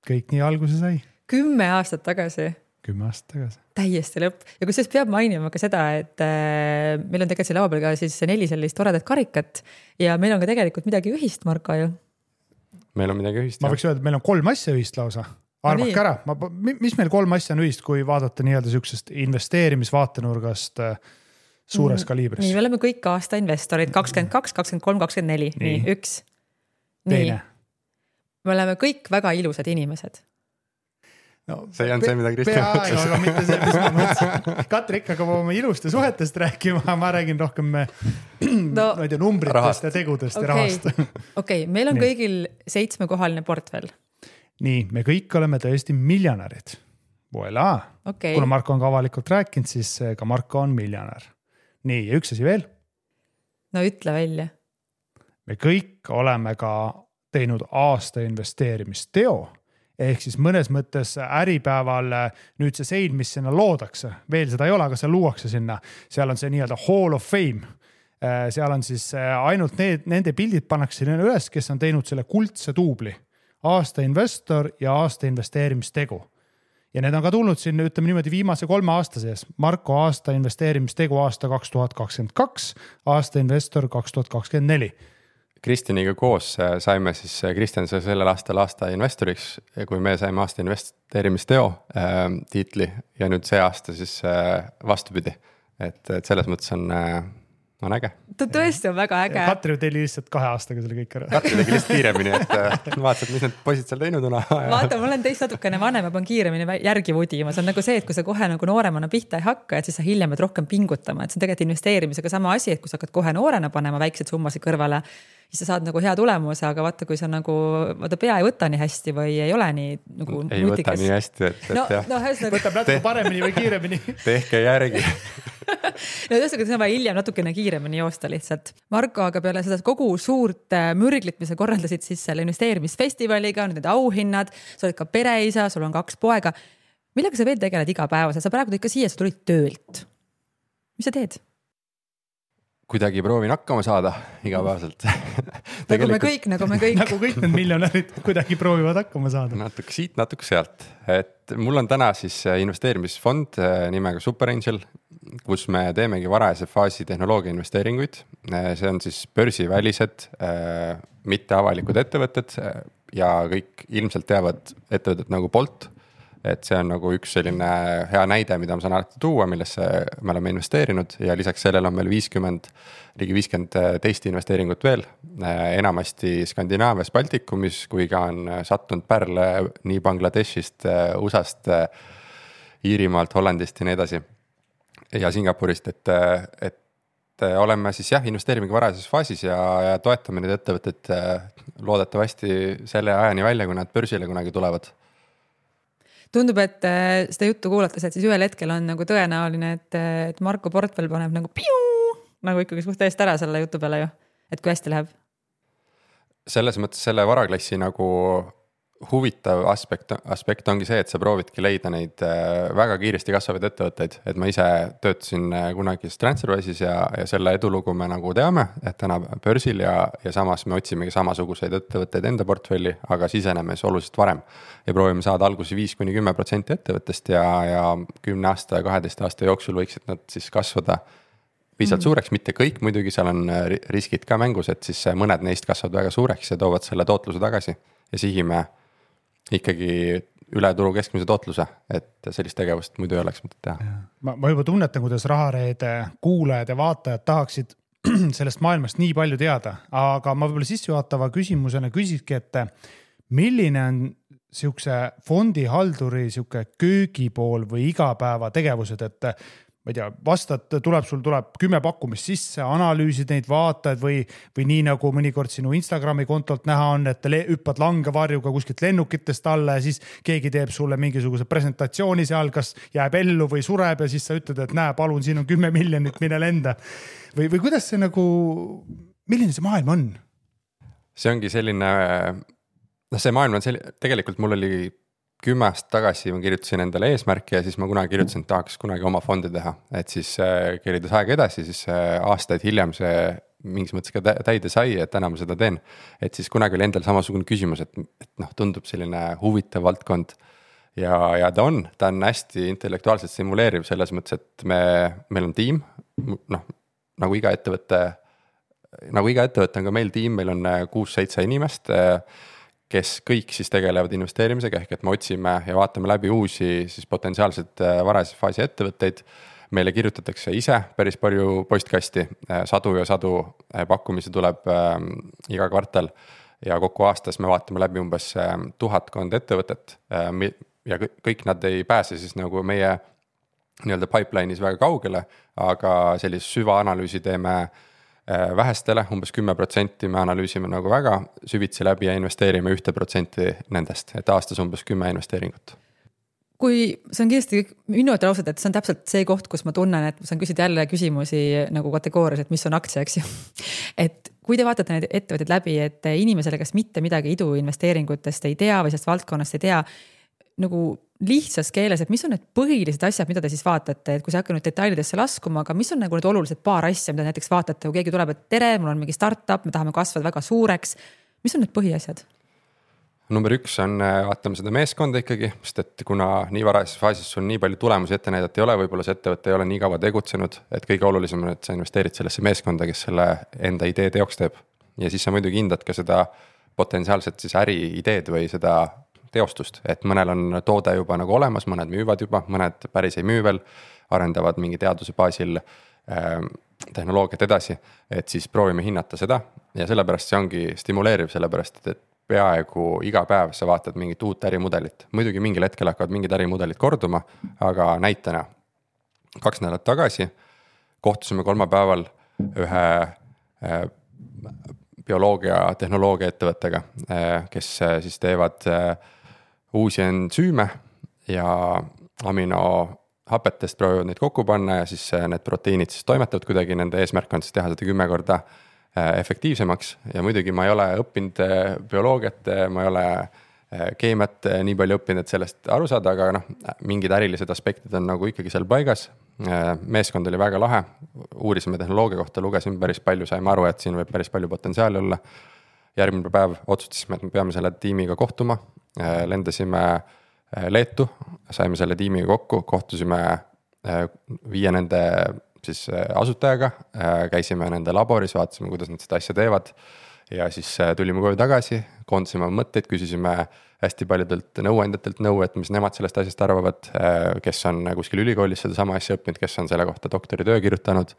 kõik nii alguse sai. 10 aastat tagasi. 10 aastat tagasi. Täiesti lõpp. Ja kusjuures peab mainima ka seda, et meil on tegelikult siin laua peal ka siis 4 sellist toredat karikat ja meil on ka tegelikult midagi ühist, Marko ju. Meil on midagi ühist. Ma võiks öelda, et meil on 3 asja ühist lausa. Arvake ära, mis meil 3 asja on ühist, kui vaadata nii-öelda sükesest investeerimisvaatenurgast suures kaliibris? Nii, me oleme kõik aasta investorid, 22, 23, 24, nii, 1. Teine. Me oleme kõik väga ilusad inimesed. No, see ei olnud see, mida Kristjan mõtles. Aga mitte see, mis ma mõtlesin. Katri ikka hakkab oma iluste suhetest rääkima, ma räägin rohkem numbritest ja tegudest ja rahast. Okei, meil on kõigil 7-kohaline portfell. Nii, me kõik oleme tõesti miljonärid. Voilà. Kuna Marko on ka avalikult rääkinud, siis ka Marko on miljonär. Nii, ja üks asi veel. No ütle välja. Me kõik oleme ka teinud aasta investeerimisteo. Ehk siis mõnes mõttes äripäeval nüüd see sein, mis sinna loodakse, veel seda ei ole, aga see luuakse sinna. Seal on see nii-öelda Hall of Fame. Seal on siis ainult nende pildid pannakse sinna üles, kes on teinud selle kuldse duubli. Aasta investor ja aasta investeerimistegu. Ja need on ka tulnud siin, ütleme niimoodi, viimase 3 aasta sees. Marko aasta investeerimistegu aasta 2022, aasta investor 2024. Kristjaniga koos saime siis, Kristjan sai sellel aastal aasta investoriks, kui me saime aasta investeerimisteo tiitli ja nüüd see aasta siis vastupidi. Et selles mõttes on äge. Ta tõesti on väga äge. Katri tegi lihtsalt 2 aastaga selle kõik ära. Katri tegi lihtsalt kiiremini, et vaatasid, mis need poisid seal teinud on. Vaata, ma olen teist natukene vanem ja pean kiiremini järgi vudima. See on nagu see, et kui sa kohe nagu nooremana pihta ei hakka, et siis sa hiljem pead rohkem pingutama. Et see on tegelikult investeerimisega sama asi, et kui sa hakkad kohe noorena panema väiksed summasid kõrvale, siis sa saad nagu hea tulemuse, aga vaata, kui sa nagu pea ei võta nii hästi või ei ole nii nagu ei võta nii hästi, et võtab natuke paremini või kiiremini. Tehke järgi. No tõesti, see on vaja hiljem natukene kiiremini joosta lihtsalt. Marko, aga peale seda kogu suurt mürglit, mis sa korraldasid siis selle investeerimisfestivaliga, need auhinnad, sa oled ka pereisa, sul on 2 poega. Millega sa veel tegeled igapäevaselt? Sa praegu ikka siia, sa tulid töölt. Mis sa teed? Kuidagi proovin hakkama saada igapäevaselt. Nagu me kõik. Nagu kõik need miljonärid kuidagi proovivad hakkama saada. Natuke siit, natuke sealt. Et mul on täna siis investeerimisfond nimega Super Angel, kus me teemegi varajase faasi tehnoloogia investeeringuid. See on siis börsivälised, mitte avalikud ettevõtted ja kõik ilmselt teavad ettevõtted nagu Bolt. Et see on nagu üks selline hea näide, mida ma saan alati tuua, millesse me oleme investeerinud ja lisaks sellele on meil ligi 50 teist investeeringut veel, enamasti Skandinaavias, Baltikumis, kui ka on sattunud pärle nii Bangladeshist, USAst, Iirimaalt, Hollandist ja nii edasi ja Singapurist, et oleme siis investeerimegi varajases faasis ja toetame need ettevõtted loodetavasti selle ajani välja, kui nad börsile kunagi tulevad. Tundub, et seda juttu kuulates, et siis ühel hetkel on nagu tõenäoline, et Marko portfell paneb nagu nagu ikkagi suht eest ära selle jutu peale ju, et kui hästi läheb. Selles mõttes selle varaklassi nagu huvitav aspekt ongi see, et sa proovidki leida neid väga kiiresti kasvavaid ettevõtteid, et ma ise töötasin kunagi TransferWise'is ja selle edulugu me nagu teame, et täna börsil ja samas me otsimegi samasuguseid ettevõtteid enda portfelli, aga siseneme oluliselt varem ja proovime saada algusi 5-10% ettevõttest ja 10 aasta ja 12 aasta jooksul võiksid nad siis kasvada piisavalt suureks, mitte kõik, muidugi seal on riskid ka mängus, et siis mõned neist kasvavad väga suureks ja toovad selle tootluse tagasi ja sihime ikkagi üle turu keskmise tootluse, et sellist tegevust muidu ei oleks mõtet teha. Ma juba tunnetan, kuidas Rahareede kuulajad ja vaatajad tahaksid sellest maailmast nii palju teada, aga ma võib-olla sissejuhatava küsimusena küsikski, et milline on siukse fondihalduri siuke köögipool või igapäeva tegevused, et ma ei tea, vastad, tuleb 10 pakkumist sisse, analüüsid neid, vaatad või nii nagu mõnikord sinu Instagrami kontolt näha on, et hüppad langevarjuga kuskilt lennukitest alla ja siis keegi teeb sulle mingisuguse presentatsiooni seal, kas jääb ellu või sureb ja siis sa ütled, et näe, palun, siin on 10 miljonit, mine lenda. Või kuidas see nagu, milline see maailm on? See ongi selline, see maailm on tegelikult mul oli 10 aastat tagasi ma kirjutasin endale eesmärki ja siis ma kunagi kirjutasin, et tahaks kunagi oma fondi teha, et siis kerides aega edasi, siis aastaid hiljem see mingis mõttes ka täide sai, et täna ma seda teen. Et siis kunagi oli endal samasugune küsimus, et tundub selline huvitav valdkond ja ta on hästi intellektuaalselt simuleeriv selles mõttes, et meil on tiim, nagu iga ettevõte on ka meil tiim, meil on 6-7 inimest, kes kõik siis tegelevad investeerimisega, ehk et me otsime ja vaatame läbi uusi siis potentsiaalselt varase faasi ettevõtteid. Meile kirjutatakse ise päris palju postkasti, sadu pakkumisi tuleb iga kvartal ja kokku aastas me vaatame läbi umbes 1000 ettevõtet ja kõik nad ei pääse siis nagu meie nii-öelda pipeline'is väga kaugele, aga sellist süvaanalüüsi teeme vähestele, umbes 10% me analüüsime nagu väga süvitsi läbi ja investeerime 1% nendest, et aastas umbes 10 investeeringut. Kui see on kindlasti minu ausalt, et see on täpselt see koht, kus ma tunnen, et ma saan küsida jälle küsimusi nagu kategoorias, et mis on aktsia, eks ju. Et kui te vaatate need ettevõtted läbi, et inimesele, kes mitte midagi iduinvesteeringutest ei tea või sellest valdkonnast ei tea, nagu lihtsas keeles, et mis on need põhilised asjad, mida te siis vaatate, et kui sa hakka nüüd detailidesse laskuma, aga mis on nagu need olulised paar asja, mida näiteks vaatate, kui keegi tuleb, et tere, mul on mingi startup, me tahame kasvada väga suureks. Mis on need põhiasjad? Number 1 on, vaatame seda meeskonda ikkagi, sest et kuna nii varases faasis sul nii palju tulemusi ette näidata ei ole, võib-olla see ettevõte ei ole nii kaua tegutsenud, et kõige olulisem on, et sa investeerid sellesse meeskonda, kes selle enda idee teoks teeb. Ja siis sa muidugi hindad ka seda potentsiaalset siis äri ideed või seda teostust, et mõnel on toode juba nagu olemas, mõned müüvad juba, mõned päris ei müü veel, arendavad mingi teaduse baasil tehnoloogiat edasi, et siis proovime hinnata seda ja sellepärast see ongi stimuleeriv, sellepärast et peaaegu iga päev sa vaatad mingit uut ärimudelit. Muidugi mingil hetkel hakkavad mingid ärimudelid korduma, aga näitena 2 nädalat tagasi kohtusime kolmapäeval ühe bioloogia tehnoloogia ettevõttega, kes siis teevad uusi ensüüme ja aminohapetest proovivad neid kokku panna ja siis need proteiinid siis toimetavad kuidagi, nende eesmärk on siis teha seda 10 korda efektiivsemaks ja muidugi ma ei ole õppinud bioloogiat, ma ei ole keemiat nii palju õppinud, et sellest aru saada, aga mingid ärilised aspektid on nagu ikkagi seal paigas. Meeskond oli väga lahe, uurisime tehnoloogia kohta, lugesime päris palju, saime aru, et siin võib päris palju potentsiaali olla. Järgmine päev otsustasime, et me peame selle tiimiga kohtuma, lendasime Leetu, saime selle tiimiga kokku, kohtusime 5 nende siis asutajaga, käisime nende laboris, vaatasime, kuidas nad seda asja teevad ja siis tulime koju tagasi, koondasime mõtteid, küsisime hästi paljudelt nõuandjatelt nõu, et mis nemad sellest asjast arvavad, kes on kuskil ülikoolis seda sama asja õppinud, kes on selle kohta doktoritöö kirjutanud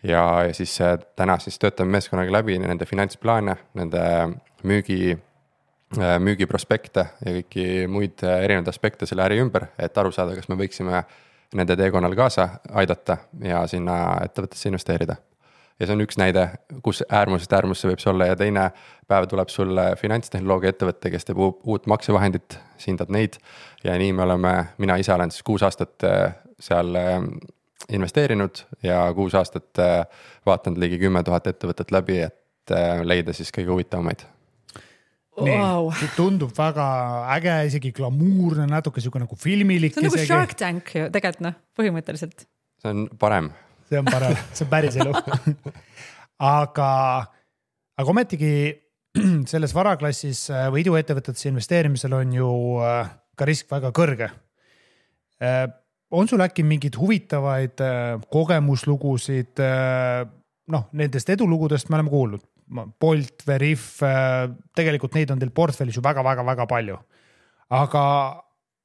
ja siis täna siis töötame meeskonnaga läbi nende finantsplaane, nende müügiprospekte ja kõiki muid erinevaid aspekte selle äri ümber, et aru saada, kas me võiksime nende teekonnal kaasa aidata ja sinna ettevõttesse investeerida. Ja see on üks näide, kus äärmusest äärmusse võib see olla ja teine päev tuleb sulle finantstehnoloogia ettevõtte, kes teeb uut maksevahendit, hindad neid ja nii me oleme, mina ise olen siis 6 aastat seal investeerinud ja 6 aastat vaatanud ligi 10 000 ettevõtet läbi, et leida siis kõige huvitavamaid. Wow. Tundub väga äge, isegi glamuurne, natuke siuke nagu filmilik. See on nagu Shark Tank ju, tegelikult põhimõtteliselt. See on parem. See on parem, see on päris elu. aga ometigi selles varaklassis või iduettevõtetesse investeerimisel on ju ka risk väga kõrge. On sul äkki mingid huvitavaid kogemuslugusid, nendest edulugudest me oleme kuulnud. Bolt, Veriff, tegelikult neid on teil portfellis ju väga palju. Aga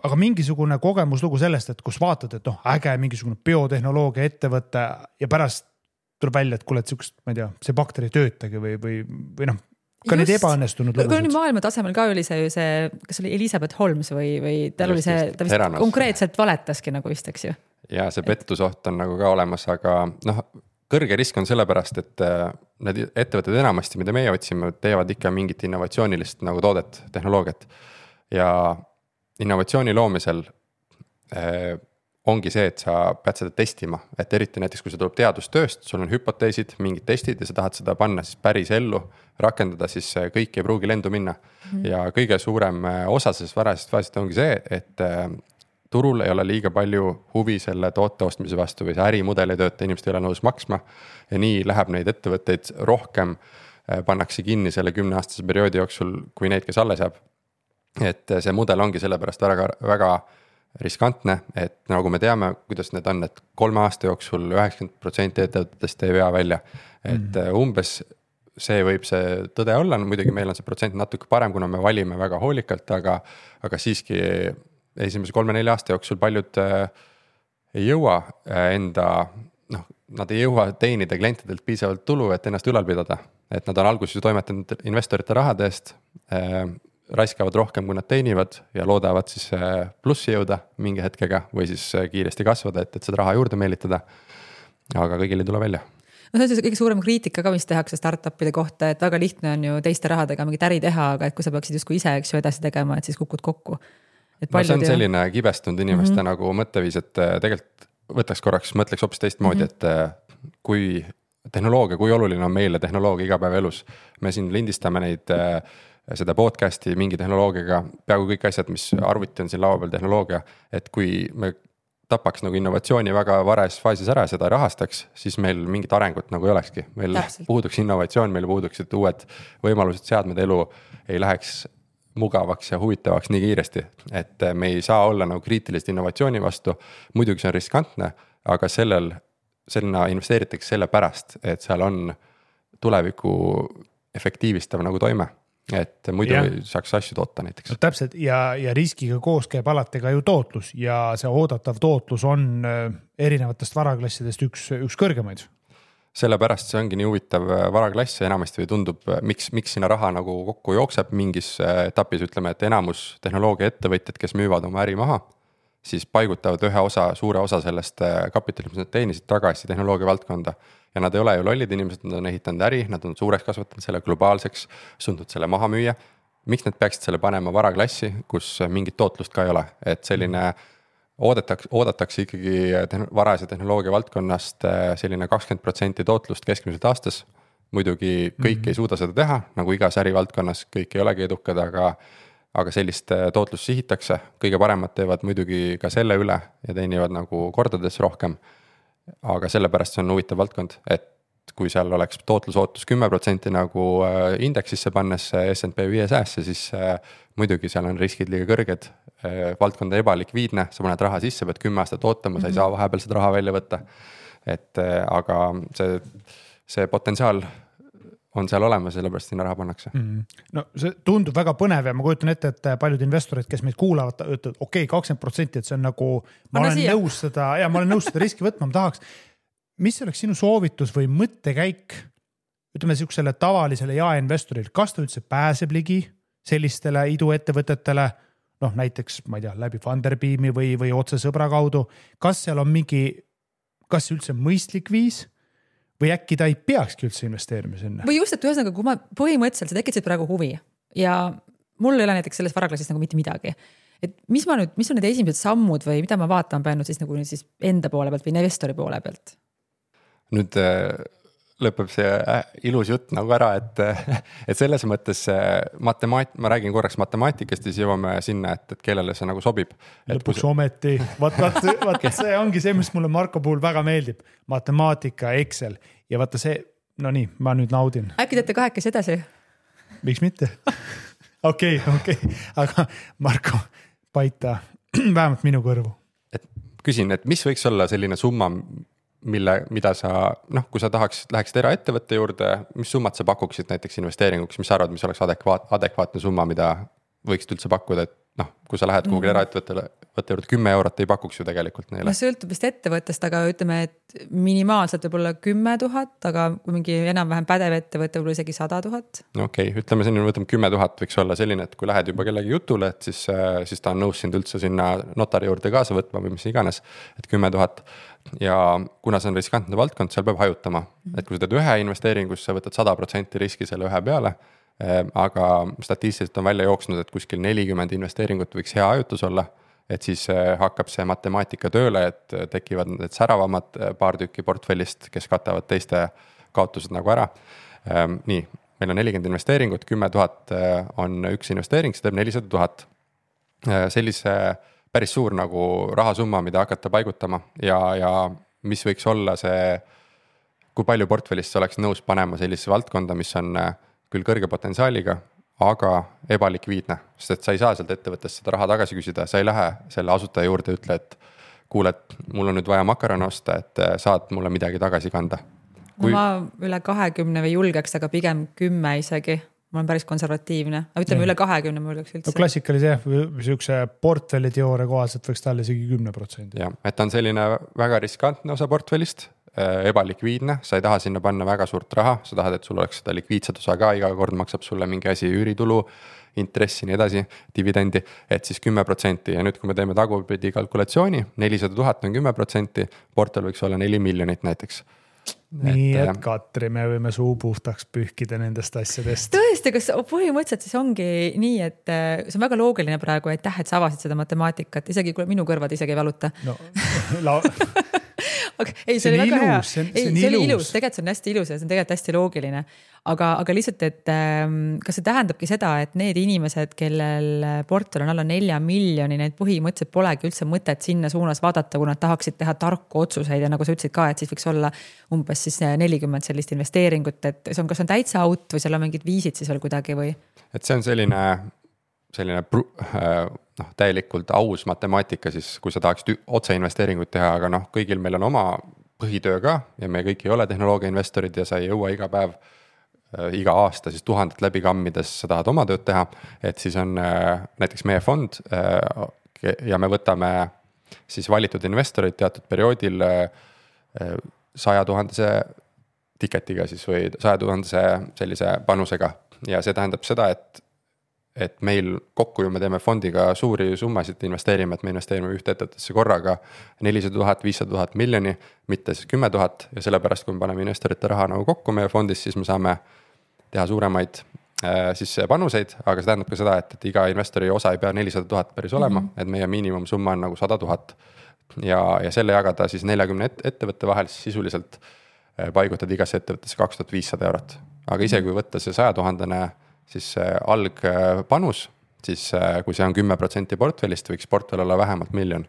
aga mingisugune kogemuslugu sellest, et kus vaatad, et äge mingisugune biotehnoloogia ettevõte ja pärast tuleb välja, et kuule, et ma ei tea, see bakteri töötagi või ka need ebaõnnestunud lugusid. Maailma tasemel ka oli see, kas oli Elizabeth Holmes või tal oli see, ta vist konkreetselt valetaski nagu vist, eks ju. Ja see pettusoht on nagu ka olemas, aga kõrge risk on sellepärast, et need ettevõtted enamasti, mida meie otsime, teevad ikka mingit innovatsioonilist nagu toodet, tehnoloogiat. Ja innovatsiooni loomisel ongi see, et sa pead seda testima, et eriti näiteks, kui see tuleb teadustööst, sul on hüpoteesid, mingid testid ja sa tahad seda panna siis päris ellu, rakendada, siis kõik ei pruugi lendu minna. Ja kõige suurem osa sellest varasest faasist ongi see, et turul ei ole liiga palju huvi selle toote ostmise vastu või see ärimudel ei tööta, inimesed ei ole nõus maksma ja nii läheb neid ettevõtteid rohkem, pannakse kinni selle 10-aastase perioodi jooksul, kui neid, kes alles jääb. Et see mudel ongi sellepärast väga riskantne, et nagu me teame, kuidas need on, et 3 aasta jooksul 90% ettevõtetest ei vea välja. Et umbes see võib see tõde olla, muidugi meil on see protsent natuke parem, kuna me valime väga hoolikalt, aga siiski esimese 3-4 aasta jooksul paljud ei jõua nad ei jõua teenida klientidelt piisavalt tulu, et ennast ülal pidada. Et nad on alguses toimetanud investorite rahade eest, raiskavad rohkem, kui nad teenivad ja loodavad siis plussi jõuda mingi hetkega või siis kiiresti kasvada, et seda raha juurde meelitada. Aga kõigil ei tule välja. No see on kõige suurem kriitika ka, mis tehakse startupide kohta, et väga lihtne on ju teiste rahadega mingit äri teha, aga et kui sa peaksid justkui ise edasi tegema, et siis kukud kokku. See on selline kibestunud inimeste nagu mõtteviis, et tegelikult mõtleks hoopis teistmoodi, et kui tehnoloogia, kui oluline on meile tehnoloogia igapäeva elus. Me siin lindistame neid seda podcasti mingi tehnoloogiaga, peaaegu kõik asjad, mis arvuti on siin laua peal tehnoloogia, et kui me tapaks nagu innovatsiooni väga vares faasis ära ja seda rahastaks, siis meil mingit arengut nagu ei olekski. Meil puuduks innovatsioon, meil puuduksid uued võimalused, seadmed, elu ei läheks mugavaks ja huvitavaks nii kiiresti, et me ei saa olla nagu kriitilist innovatsiooni vastu, muidugi see on riskantne, aga sellena investeeritakse selle pärast, et seal on tuleviku efektiivistav nagu toime. Et muidu saaks asju toota näiteks. No, täpselt ja riskiga koos käib alati ka ju tootlus ja see oodatav tootlus on erinevatest varaklassidest üks kõrgemaid. Sellepärast see ongi nii huvitav varaklass ja enamasti või tundub, miks sinna raha nagu kokku jookseb mingis etapis, ütleme, et enamus tehnoloogia ettevõtjad, kes müüvad oma äri maha, siis paigutavad suure osa sellest kapitalist, mis nad teenisid tagasi tehnoloogia valdkonda. Ja nad ei ole ju lollid inimesed, nad on ehitanud äri, nad on suureks kasvatanud selle globaalseks, sundnud selle maha müüa. Miks nad peaksid selle panema varaklassi, kus mingit tootlust ka ei ole? Et selline oodatakse ikkagi varase tehnoloogia valdkonnast selline 20% tootlust keskmiselt aastas. Muidugi kõik ei suuda seda teha, nagu igas ärivaldkonnas kõik ei olegi edukad, aga sellist tootlust sihitakse. Kõige paremad teevad muidugi ka selle üle ja teenivad nagu kordades rohkem. Aga sellepärast see on huvitav valdkond, et kui seal oleks tootlusootus 10% nagu indeksisse pannes S&P 500, siis muidugi seal on riskid liiga kõrged, valdkonda ebalikviidne, sa paned raha sisse, pead 10 aastat ootama, sa ei saa vahepeal seda raha välja võtta. Aga see potentsiaal on seal olemas, sellepärast sinna raha pannakse. No see tundub väga põnev ja ma kujutan ette, et paljud investorid, kes meid kuulavad, ütlevad, okei, 20%, et see on nagu, ma olen nõus seda riski võtma, ma tahaks. Mis oleks sinu soovitus või mõttekäik, ütleme siuksele tavalisele jaeinvestoril, kas ta üldse pääseb ligi sellistele iduettevõtetele, näiteks, ma ei tea, läbi Funderbeami või otse sõbra kaudu, kas seal on kas üldse mõistlik viis, või äkki ta ei peakski üldse investeerima sinna? Või just, et ühesõnaga, kui ma põhimõtteliselt sa tekitasid praegu huvi ja mul ei ole näiteks selles varaklassist nagu mitte midagi. Et mis on need esimesed sammud või mida ma vaatan peanud siis nagu siis enda poole pealt või investori poole pealt? Nüüd lõpeb see ilus jutt nagu ära, et selles mõttes ma räägin korraks matemaatikast ja siis jõuame sinna, et kellele see nagu sobib. Lõpuks ometi, vaat see ongi see, mis mulle Marko puhul väga meeldib. Matemaatika, Excel ja vaata see, no nii, ma nüüd naudin. Äkki teete kahekesi edasi? Miks mitte? Okei, aga Marko, paita vähemalt minu kõrvu. Küsin, et mis võiks olla selline summa, mida sa, kui sa läheksid eraettevõtte juurde, mis summad sa pakuksid näiteks investeeringuks, mis sa arvad, mis oleks adekvaatne summa, mida võiksid üldse pakkuda, et noh, kui sa lähed kuhugi eraettevõttele, võtta juurde 10 eurot ei pakuks ju tegelikult neile. Sõltub vist ettevõttest, aga ütleme, et minimaalselt võib olla 10 000, aga kui mingi enam-vähem pädev ettevõte võib olla isegi 100 000. Okei, ütleme selline, võtame 10 000 võiks olla selline, et kui lähed juba kellegi jutule, et siis ta on nõus sind üldse sinna notari juurde kaasa võtma või mis iganes, et 10 000 ja kuna see on riskantne valdkond, seal peab hajutama, et kui sa teed ühe investeeringus, sa võtad 100% riski selle ühe peale, aga statistiliselt on välja jooksnud, et kuskil 40 investeeringut võiks hea hajutus olla, et siis hakkab see matemaatika tööle, et tekivad need säravamad paar tükki portfellist, kes katavad teiste kaotused nagu ära. Nii, meil on 40 investeeringut, 10 000 on üks investeering, see teeb 400 000. Sellise päris suur nagu rahasumma, mida hakata paigutama ja mis võiks olla see, kui palju portfellist oleks nõus panema sellisesse valdkonda, mis on küll kõrge potentsiaaliga, aga ebalikviidne, sest et sa ei saa sealt ettevõttest seda raha tagasi küsida, sa ei lähe selle asutaja juurde ja ütle, et kuule, et mul on nüüd vaja makarone osta, et saad mulle midagi tagasi kanda. Kui... No ma üle 20 või julgeks, aga pigem 10 isegi. Ma olen päris konservatiivne, aga ütleme üle 20 ma julgeks üldse. No klassikalise sihukese portfelli teoore kohaselt võiks talle isegi 10%. Ja, et on selline väga riskantne osa portfellist, ebalikviidne, sa ei taha sinna panna väga suurt raha, sa tahad, et sul oleks seda likviidset osa ka, iga kord maksab sulle mingi asi üüritulu, intressi, nii edasi, dividendi, et siis 10% ja nüüd, kui me teeme tagurpidi kalkulatsiooni, 400 000 on 10%, portfell võiks olla 4 miljonit näiteks. Nii, et Katri, me võime suu puhtaks pühkida nendest asjadest. Tõesti, kas põhimõtteliselt siis ongi nii, et see on väga loogiline praegu, et sa avasid seda matemaatikat, isegi kui minu kõrvad isegi ei valuta. No, ei, see oli väga hea. See oli ilus, tegelikult see on hästi ilus ja see on tegelikult hästi loogiline. Aga lihtsalt, et kas see tähendabki seda, et need inimesed, kellel portfell on alla 4 miljoni, need põhimõtteliselt polegi üldse mõtet sinna suunas vaadata, kui nad tahaksid teha tarku otsuseid ja nagu sa ütlesid ka, et siis võiks olla umbes siis 40 sellist investeeringut, et see on, kas on täitsa out või seal on mingid viisid siis veel kuidagi või? Et see on selline täielikult aus matemaatika siis, kui sa tahaksid otse investeeringut teha, aga kõigil meil on oma põhitöö ka ja me kõik ei ole tehnoloogia investorid ja sa ei jõua iga päev, iga aasta siis 1000 läbi kammides sa tahad oma tööd teha, et siis on näiteks meie fond ja me võtame siis valitud investorid teatud perioodil 100 000 tiketiga siis või 100 000 sellise panusega ja see tähendab seda, et meil kokku ju me teeme fondiga suuri summasid investeerime, et me investeerime ühte ettevõttesse korraga 400 000, 500 000 miljoni, mitte siis 10 000 ja sellepärast, kui me paneme investorite raha nagu kokku meie fondis, siis me saame teha suuremaid siis panuseid, aga see tähendab ka seda, et iga investori osa ei pea 400 000 päris olema, et meie miinimumsumma on nagu 100 000 ja selle jagada siis 40 ettevõtte vahel, siis sisuliselt paigutad igasse ettevõttesse 2500 eurot. Aga ise, kui võtta see 100 000 siis algpanus, siis kui see on 10% portfellist, võiks portfell olla vähemalt 1 miljon.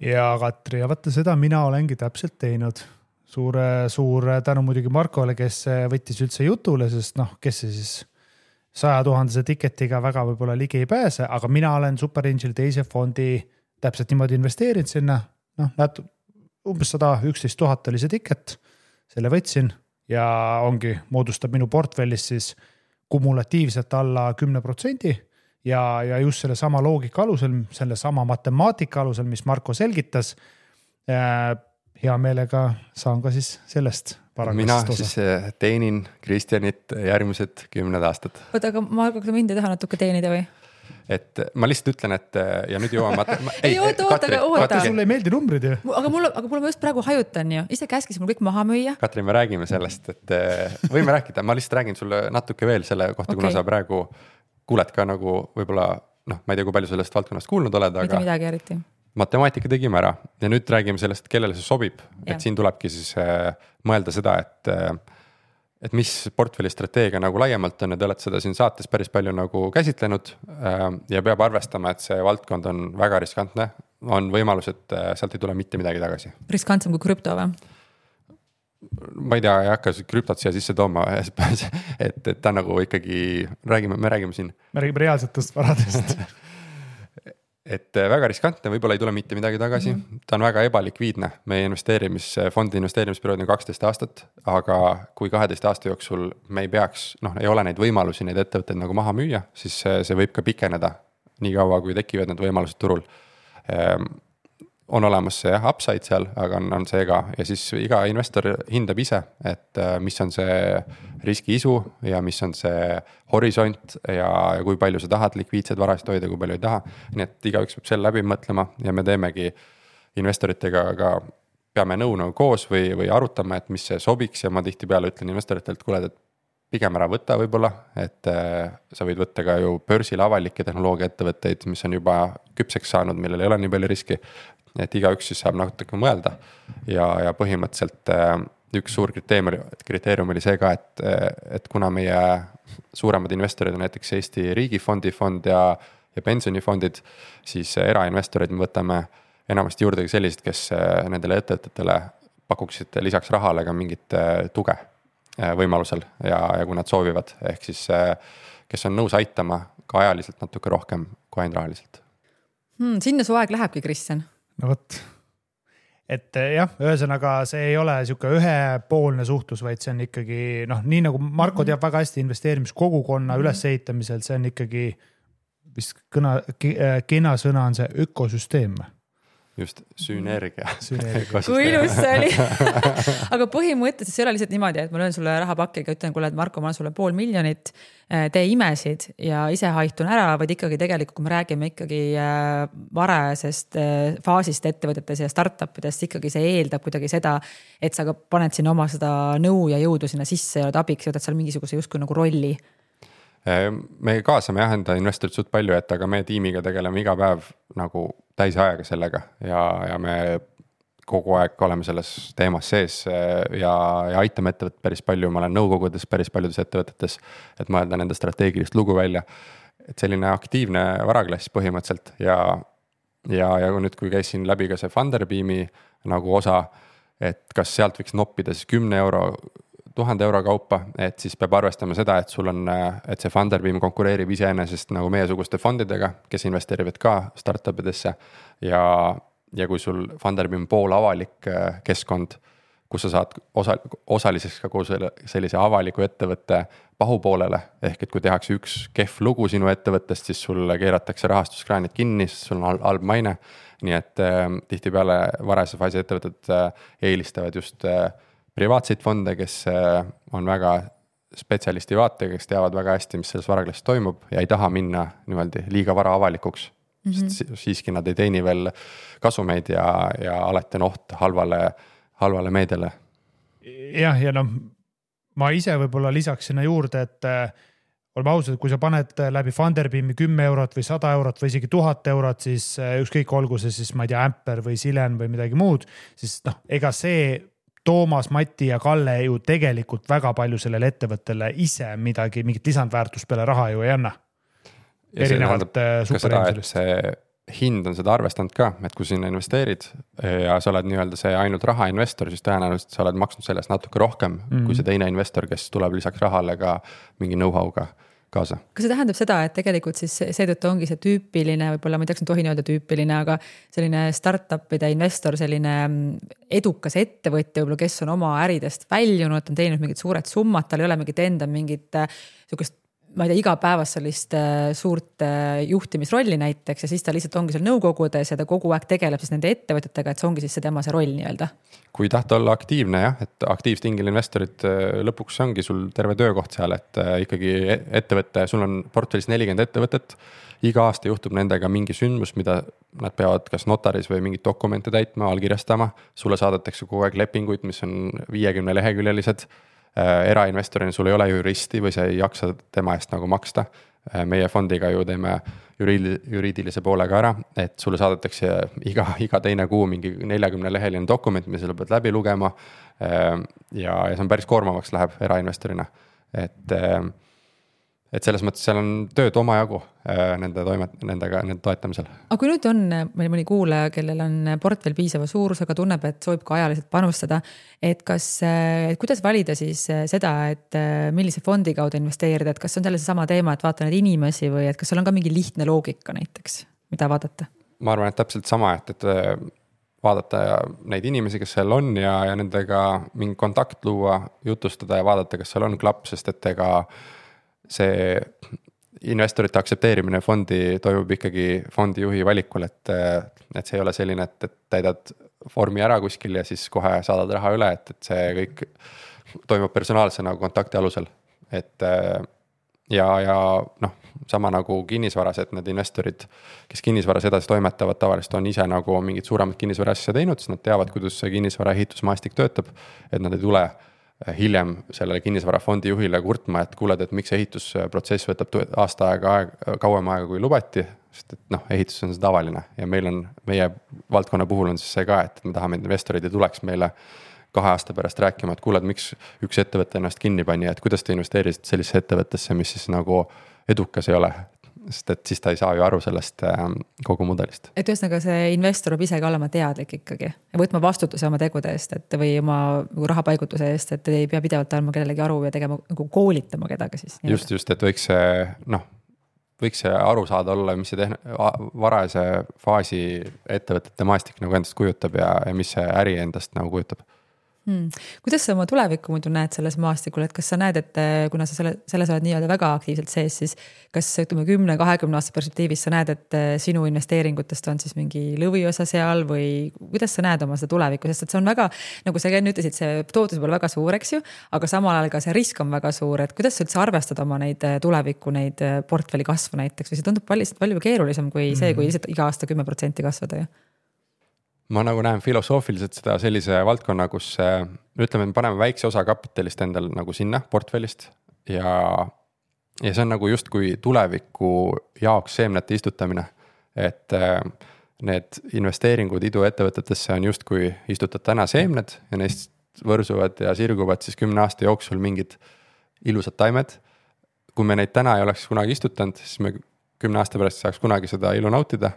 Ja Katri, ja vaata seda mina olengi täpselt teinud. Suur tänu muidugi Markole, kes võttis üldse jutule, sest kes see siis 100 000 tiketiga väga võib-olla ligi ei pääse, aga mina olen Superangel teise fondi täpselt niimoodi investeerinud sinna. Umbes 111 000 oli see tiket, selle võtsin ja ongi, moodustab minu portfellist siis kumulatiivselt alla 10% ja just selle sama loogika alusel, selle sama matemaatika alusel, mis Marko selgitas, hea meelega saan ka siis sellest paragrafist osa. Mina siis teenin Kristjanit järgmised 10 aastat. Oota, aga Marko, kas mind ei taha natuke teenida või? Et ma lihtsalt ütlen, et ja nüüd jõuame oota. Sulle ei meeldi numbrid ju? Aga mul ma just praegu hajutan ju. Ise käskis mul kõik maha müüa. Katri, me räägime sellest, et võime rääkida. Ma lihtsalt räägin sulle natuke veel selle kohta, kuna sa praegu kuuled ka nagu võib-olla, ma ei tea, kui palju sellest valdkonnast kuulnud oled, aga midagi eriti. Matemaatika tegime ära ja nüüd räägime sellest, kellele see sobib. Et siin tulebki siis mõelda seda, et mis portfelli strateegia nagu laiemalt on ja te olete seda siin saates päris palju nagu käsitlenud ja peab arvestama, et see valdkond on väga riskantne. On võimalus, et sealt ei tule mitte midagi tagasi. Riskantsem kui krüpto või? Ma ei tea, ei hakka krüptot siia sisse tooma, et ta nagu ikkagi me räägime siin. Me räägime reaalsetest varadest. et väga riskantne, võib-olla ei tule mitte midagi tagasi, ta on väga ebalikviidne, meie fondi investeerimisperiood on 12 aastat, aga kui 12 aasta jooksul me ei peaks, ei ole neid võimalusi, neid ettevõtteid nagu maha müüa, siis see võib ka pikeneda nii kaua, kui tekivad need võimalused turul. On olemas see upside seal, aga on see ka ja siis iga investor hindab ise, et mis on see riskiisu ja mis on see horisont ja kui palju sa tahad likviidseid varasid hoida, kui palju ei taha. Nii et igaüks peab selle läbi mõtlema ja me teemegi investoritega ka peame nõu koos või arutame, et mis see sobiks ja ma tihtipeale ütlen investoritelt, kuule, et pigem ära võtta võib-olla, et sa võid võtta ka ju börsil avalikke tehnoloogia ettevõtteid, mis on juba küpseks saanud, millel ei ole nii palju riski. Et igaüks siis saab natuke mõelda ja põhimõtteliselt üks suur kriteerium oli see ka, et kuna meie suuremad investorid on näiteks Eesti riigifond ja pensionifondid, siis erainvestorid me võtame enamasti juurde sellised, kes nendele ettevõtetele pakuksid lisaks rahale ka mingit tuge võimalusel ja kui nad soovivad, ehk siis kes on nõus aitama ka ajaliselt natuke rohkem kui ainult rahaliselt. Sinna su aeg lähebki, Kristjan? No võt, et jah, ühesõnaga see ei ole siuke ühepoolne suhtlus, vaid see on ikkagi, nii nagu Marko teab väga hästi investeerimiskogukonna ülesehitamisel, see on ikkagi, vist kena sõna on see ökosüsteem. Just, sünergia. Kui ilus see oli. Aga põhimõtteliselt see ei ole lihtsalt niimoodi, et ma löön sulle rahapakiga, ütlen, kuule, et Marko, ma olen sulle 500 000, tee imesid ja ise haitun ära, vaid ikkagi tegelikult, kui me räägime ikkagi varajasest faasist ettevõtetes ja startupidest, ikkagi see eeldab kuidagi seda, et sa ka paned sinna oma seda nõu ja jõudu sinna sisse ja oled abiks ja võtad seal mingisuguse justkui nagu rolli. Me kaasame jah investorit suht palju, et aga me tiimiga tegeleme iga päev nagu täisajaga sellega ja me kogu aeg oleme selles teemas sees ja aitame ettevõtet päris palju, ma olen nõukogudes päris paljudes ettevõtetes, et mõelda nende strateegilist lugu välja, et selline aktiivne varaklass põhimõtteliselt ja nüüd, kui käisin läbi ka see Funderbeami nagu osa, et kas sealt võiks noppida siis 10 euro 1000 euro kaupa, et siis peab arvestama seda, et sul on, et see Funderbeam konkureerib iseenesest nagu meiesuguste fondidega, kes investeerivad ka startupidesse ja kui sul Funderbeam pool avalik keskkond, kus sa saad osaliseks ka koos sellise avaliku ettevõtte pahupoolele, ehk et kui tehakse üks kehv lugu sinu ettevõttest, siis sul keeratakse rahastuskraanid kinni, sest sul on halb maine, nii et tihtipeale varase faasi ettevõtted eelistavad just privaatseid fonde, kes on väga spetsialisti vaatega, kes teavad väga hästi, mis selles varaklassis toimub ja ei taha minna niimoodi liiga vara avalikuks. Sest siiski nad ei teeni veel kasumeid ja alati on oht halvale meediale. Jah, ja ma ise võib-olla lisaks sinna juurde, et oleme ausad, kui sa paned läbi Funderbeami 10 eurot või 100 eurot või isegi 1000 eurot, siis ükskõik olgu see siis, ma ei tea, Amper või Silen või midagi muud, siis ega see Toomas, Mati ja Kalle ju tegelikult väga palju sellele ettevõttele ise mingit lisandväärtust peale raha ju ei anna. Erinevalt superinvestorist. See hind on seda arvestanud ka, et kui sinna investeerid ja sa oled nii-öelda see ainult rahainvestor, siis tõenäoliselt sa oled maksnud sellest natuke rohkem kui see teine investor, kes tuleb lisaks rahale ka mingi know-how'ga kaasa. Kas see tähendab seda, et tegelikult siis seetõttu ongi see tüüpiline, võib-olla ma ei teaks, ma tohin öelda tüüpiline, aga selline startupide investor, selline edukas ettevõtja, võib-olla kes on oma äridest väljunud, on teinud mingid suured summad, tal ei ole mingit enda mingit sukest, ma ei tea, igapäevast sellist suurt juhtimisrolli näiteks ja siis ta lihtsalt ongi seal nõukogudes ja ta kogu aeg tegeleb siis nende ettevõtetega, et see ongi siis see tema see roll nii-öelda. Kui tahta olla aktiivne jah, et aktiivstingil investorid lõpuks ongi sul terve töökoht seal, et ikkagi ettevõtte, sul on portfellis 40 ettevõtet, iga aasta juhtub nendega mingi sündmus, mida nad peavad kas notaris või mingit dokumente täitma, allkirjastama, sulle saadetakse kogu aeg lepinguid, mis on 50 leheküljelised. Erainvestorina sul ei ole juristi või sa ei jaksa tema eest nagu maksta. Meie fondiga ju teeme juriidilise poolega ära, et sulle saadetakse iga teine kuu mingi 40 leheline dokument, mis selle pead läbi lugema ja see on päris koormavaks läheb erainvestorina. Et selles mõttes seal on tööd omajagu nende toetamisel. Aga kui nüüd on meil mõni kuulaja, kellel on portfell piisava suurusega, tunneb, et soovib ka ajaliselt panustada, et kuidas valida siis seda, et millise fondi kaudu investeerida, et kas on selle sama teema, et vaata neid inimesi või et kas seal on ka mingi lihtne loogika näiteks, mida vaadata? ma arvan, et täpselt sama, et vaadata neid inimesi, kes seal on ja nendega mingi kontakt luua, jutustada ja vaadata, kas seal on klapp, sest et ega see investorite aktsepteerimine fondi toimub ikkagi fondijuhi valikul, et see ei ole selline, et täidad vormi ära kuskil ja siis kohe saadad raha üle, et see kõik toimub personaalse nagu kontakti alusel, et ja noh, sama nagu kinnisvaras, et need investorid, kes kinnisvaras edasi toimetavad, tavaliselt on ise nagu mingid suuremad kinnisvara asja teinud, siis nad teavad, kuidas see kinnisvara ehitusmaastik töötab, et nad ei tule hiljem sellele kinnisvarafondi juhile kurtma, et kuuled, et miks ehitusprotsess võtab aasta kauem aega kui lubati, sest et noh, ehitus on see tavaline ja meie valdkonna puhul on siis see ka, et me tahame, et investorid ei tuleks meile 2 aasta pärast rääkima, et kuuled, miks üks ettevõte ennast kinni pani, et kuidas te investeerisid sellisesse ettevõttesse, mis siis nagu edukas ei ole, sest et siis ta ei saa ju aru sellest kogu mudelist. Et ühesõnaga see investor peab ise ka olema teadlik ikkagi ja võtma vastutuse oma tegude eest, et või oma rahapaigutuse eest, et ei pea pidevalt andma kellelegi aru ja tegema, nagu koolitama kedagi siis. Just, et võiks see aru saada olla, mis see varajase faasi ettevõtete maastik nagu endast kujutab ja mis see äri endast nagu kujutab. Kuidas sa oma tulevikku muidu näed selles maastikul, et kas sa näed, et kuna sa selles oled nii-öelda väga aktiivselt sees, siis kas 10-20 aasta perspektiivis sa näed, et sinu investeeringutest on siis mingi lõviosa seal või kuidas sa näed oma seda tulevikku, sest et see on väga, nagu sa enne ütlesid, see tootlus võib olla väga suur, eks ju, aga samal ajal ka see risk on väga suur, et kuidas sa üldse arvestad oma neid tulevikku, neid portfelli kasvu näiteks või see tundub palju keerulisem kui see, kui lihtsalt iga aasta 10% kasvada ju? Ma nagu näen filosoofiliselt seda sellise valdkonna, kus ütleme, me paneme väikse osa kapitalist endal nagu sinna portfellist ja see on nagu justkui tuleviku jaoks seemnete istutamine, et need investeeringud iduettevõtetesse on justkui istutad täna seemned ja neist võrsuvad ja sirguvad siis 10 aasta jooksul mingid ilusad taimed. Kui me neid täna ei oleks kunagi istutanud, siis me 10 aasta pärast saaks kunagi seda ilu nautida.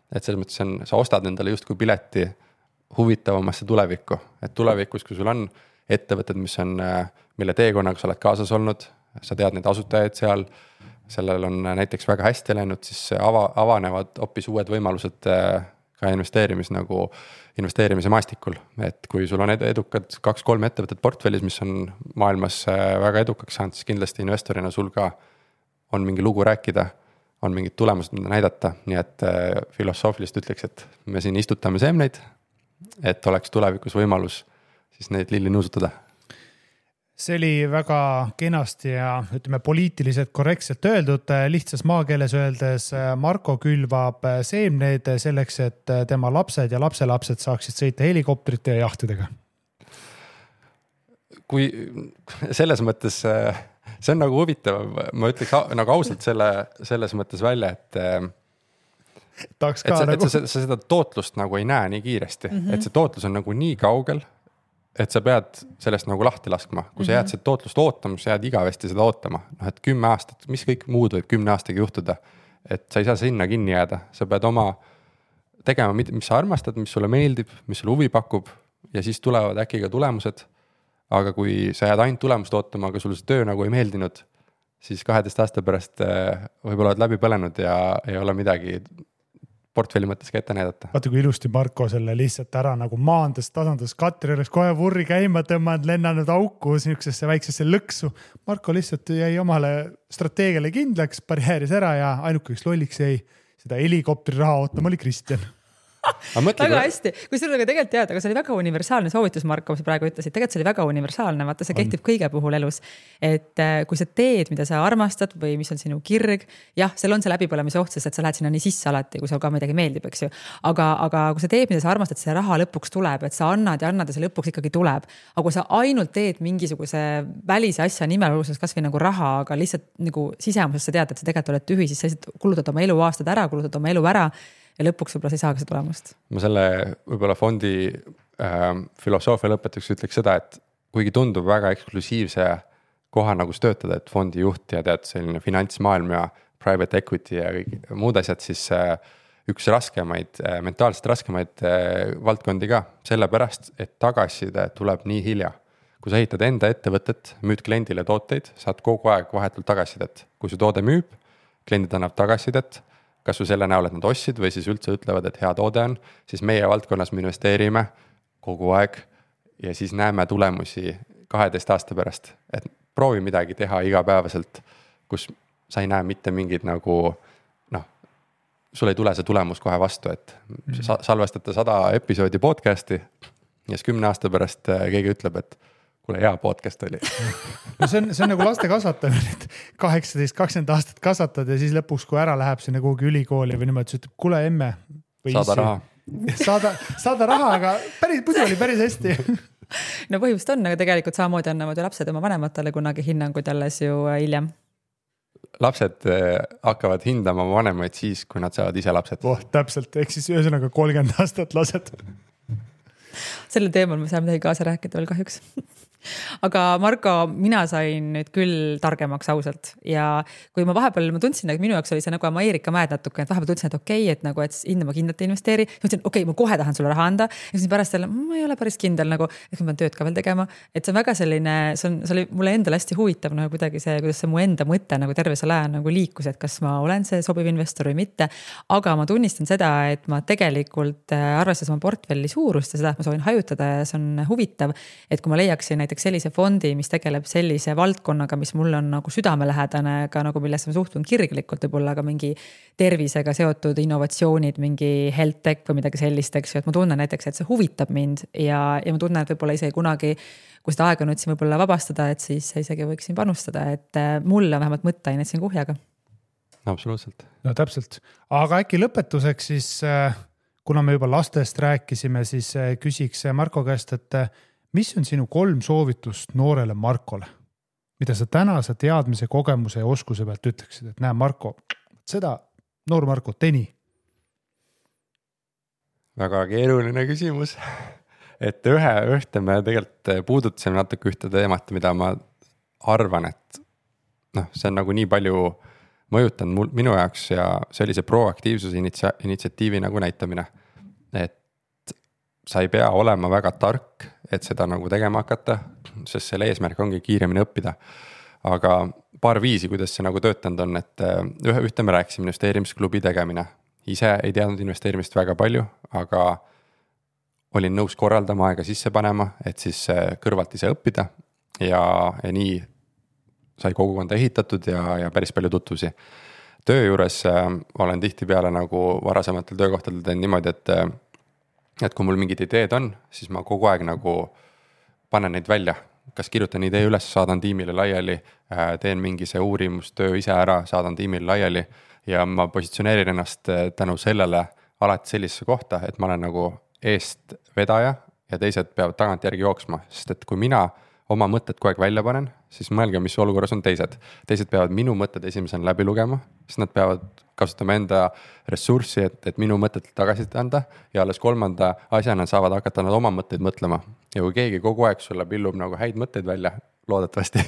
Et selles mõttes sa ostad endale justkui pileti huvitavamasse tulevikku, et tulevikus, kui sul on ettevõtted, mille teekonnaga sa oled kaasas olnud, sa tead neid asutajaid seal, sellel on näiteks väga hästi läinud, siis avanevad hoopis uued võimalused ka investeerimise maastikul, et kui sul on edukad 2-3 ettevõtted portfellis, mis on maailmas väga edukaks saanud, siis kindlasti investorina sul ka on mingi lugu rääkida, on mingid tulemused, mida näidata, nii et filosoofilist ütleks, et me siin istutame seemneid, et oleks tulevikus võimalus siis neid lilli nuusutada. See oli väga kenasti ja ütleme poliitiliselt korrektselt öeldud, lihtsas maakeeles öeldes Marko külvab seemneid selleks, et tema lapsed ja lapselapsed saaksid sõita helikopterite ja jahtidega. Kui selles mõttes see on nagu huvitav, ma ütleks nagu ausalt selles mõttes välja, et sa seda tootlust nagu ei näe nii kiiresti, et see tootlus on nagu nii kaugel, et sa pead sellest nagu lahti laskma. Kui sa jääd seda tootlust ootama, sa jääd igavesti seda ootama. Et 10 aastat, mis kõik muud võib 10 aastaga juhtuda, et sa ei saa sinna kinni jääda. Sa pead oma tegema, mis sa armastad, mis sulle meeldib, mis sulle huvi pakub ja siis tulevad äkki ka tulemused. Aga kui sa jääd ainult tulemust ootama, aga sulle see töö nagu ei meeldinud, siis 12 aasta pärast võib-olla oled läbi põlenud ja ei ole midagi portfelli mõttes ka ette näidata. Vaata, kui ilusti Marko selle lihtsalt ära nagu maandas, tasandas Katri oleks kohe vurri käima tõmmanud, lennanud auku niisugusesse väiksesse lõksu. Marko lihtsalt jäi omale strateegiale kindlaks, barjääris ära ja ainukeks lolliks jäi seda helikopteri raha ootama oli Kristjan. Väga hästi, kui sul on tegelikult teada, aga see oli väga universaalne soovitus, Marko, mis praegu ütlesid, tegelikult see oli väga universaalne, vaata see kehtib kõige puhul elus, et kui sa teed, mida sa armastad või mis on sinu kirg, jah, seal on see läbipõlemise oht, sest et sa lähed sinna nii sisse alati, kui sul ka midagi meeldib, eks ju, aga kui sa teed, mida sa armastad, see raha lõpuks tuleb, et sa annad ja see lõpuks ikkagi tuleb, aga kui sa ainult teed mingisuguse välise asja nimel, kas või nagu raha, aga lihtsalt nagu sisemuses sa tead, et sa tegelikult oled tühi, siis sa lihtsalt kulutad oma elu aastad ära, kulutad oma elu ära ja lõpuks võib-olla sa ei saagi seda tulemust. Ma selle võib-olla fondi filosoofia lõpetuseks ütleks seda, et kuigi tundub väga eksklusiivse koha nagu töötada, et fondi juht ja tead selline finantsmaailm ja private equity ja kõik muud asjad, siis üks raskemaid, mentaalselt raskemaid valdkondi ka, sellepärast, et tagasiside tuleb nii hilja. Kui sa ehitad enda ettevõtet, müüd kliendile tooteid, saad kogu aeg vahetult tagasisidet. Kui su toode müüb, kliendid annab tagasisidet, kas või selle näol, et nad ostsid või siis üldse ütlevad, et hea toode on, siis meie valdkonnas me investeerime kogu aeg ja siis näeme tulemusi 12 aasta pärast, et proovi midagi teha igapäevaselt, kus sa ei näe mitte mingid nagu sul ei tule see tulemus kohe vastu, et salvestate 100 episoodi podcast'i ja siis 10 aasta pärast keegi ütleb, et kuule, hea podcast oli. No see on nagu laste kasvatamine, et 18-20 aastat kasvatad ja siis lõpuks, kui ära läheb sinna kuhugi ülikooli või niimoodi, siis ütleb, kuule emme. Saada raha. Saada raha, aga muidu oli päris hästi. No põhjust on, aga tegelikult samamoodi annavad ju lapsed oma vanematele kunagi hinnanguid alles ju hiljem. Lapsed hakkavad hindama vanemaid siis, kui nad saavad ise lapsed. Täpselt, ehk siis ühesõnaga 30 aastat lased. Selle teemal me saame midagi kaasa rääkida veel kahjuks. Aga Marko, mina sain nüüd küll targemaks ausalt ja kui ma vahepeal tundsin, et minu jaoks oli see nagu Ameerika mäed natuke, et vahepeal tundsin, et okei, et nagu, et hinda ma kindlalt investeeri. Mõtlesin, okei, ma kohe tahan sulle raha anda. Ja siis pärast jälle, ma ei ole päris kindel, nagu, et ma pean tööd ka veel tegema. Et see on väga selline, see oli mulle endale hästi huvitav, nagu kuidagi see, kuidas see mu enda mõte nagu terve selle aja nagu liikus, et kas ma olen see sobiv investor või mitte. Aga ma tunnistan seda, et ma tegelikult arvestades oma portfelli suurust ja seda, et ma soovin hajutada ja see on huvitav, et kui ma leiaksin näiteks sellise fondi, mis tegeleb sellise valdkonnaga, mis mul on nagu südamelähedane, ka nagu millesse ma suhtun kirglikult, võib-olla ka mingi tervisega seotud innovatsioonid, mingi health tech või midagi sellist, eks ju, et ma tunnen näiteks, et see huvitab mind ja ma tunnen, et võib-olla isegi kunagi, kui seda aega nüüd siin võib-olla vabastada, et siis isegi võiksin panustada, et mulle on vähemalt mõtteainet siin kuhjaga. Absoluutselt. No täpselt. Aga äkki lõpetuseks siis, kuna me juba lastest rääkisime, siis küsiks Marko käest, et mis on sinu 3 soovitust noorele Markole? Mida sa tänase teadmise, kogemuse ja oskuse pealt ütleksid, et näe Marko, seda noor Marko, teni? Väga keeruline küsimus. Et ühte me tegelikult puudutasime natuke ühte teemat, mida ma arvan, et see on nagu nii palju mõjutanud minu jaoks ja see oli see proaktiivsuse initsiatiivi nagu näitamine. Et sa ei pea olema väga tark, et seda nagu tegema hakata, sest selle eesmärk ongi kiiremini õppida. Aga paar viisi, kuidas see nagu töötanud on, et ühte me rääkisime investeerimisklubi tegemine. Ise ei teadnud investeerimist väga palju, aga olin nõus korraldama aega sisse panema, et siis kõrvalt ise õppida ja nii sai kogukonda ehitatud ja päris palju tutvusi. Töö juures olen tihtipeale nagu varasematel töökohtadel teen niimoodi, et kui mul mingid ideed on, siis ma kogu aeg nagu panen neid välja. Kas kirjutan idee üles, saadan tiimile laiali, teen mingi see uurimustöö ise ära, saadan tiimile laiali ja ma positsioneerin ennast tänu sellele alati sellisesse kohta, et ma olen nagu eest vedaja ja teised peavad tagant järgi jooksma, sest et kui mina oma mõtted kogu aeg välja panen, siis mõelge, mis olukorras on teised. Teised peavad minu mõtted esimesena läbi lugema, siis nad peavad kasutama enda ressurssi, et minu mõtted tagasi anda ja alles 3. asjana saavad hakata nad oma mõtteid mõtlema. Ja kui keegi kogu aeg sulle pillub nagu häid mõtteid välja, loodetavasti,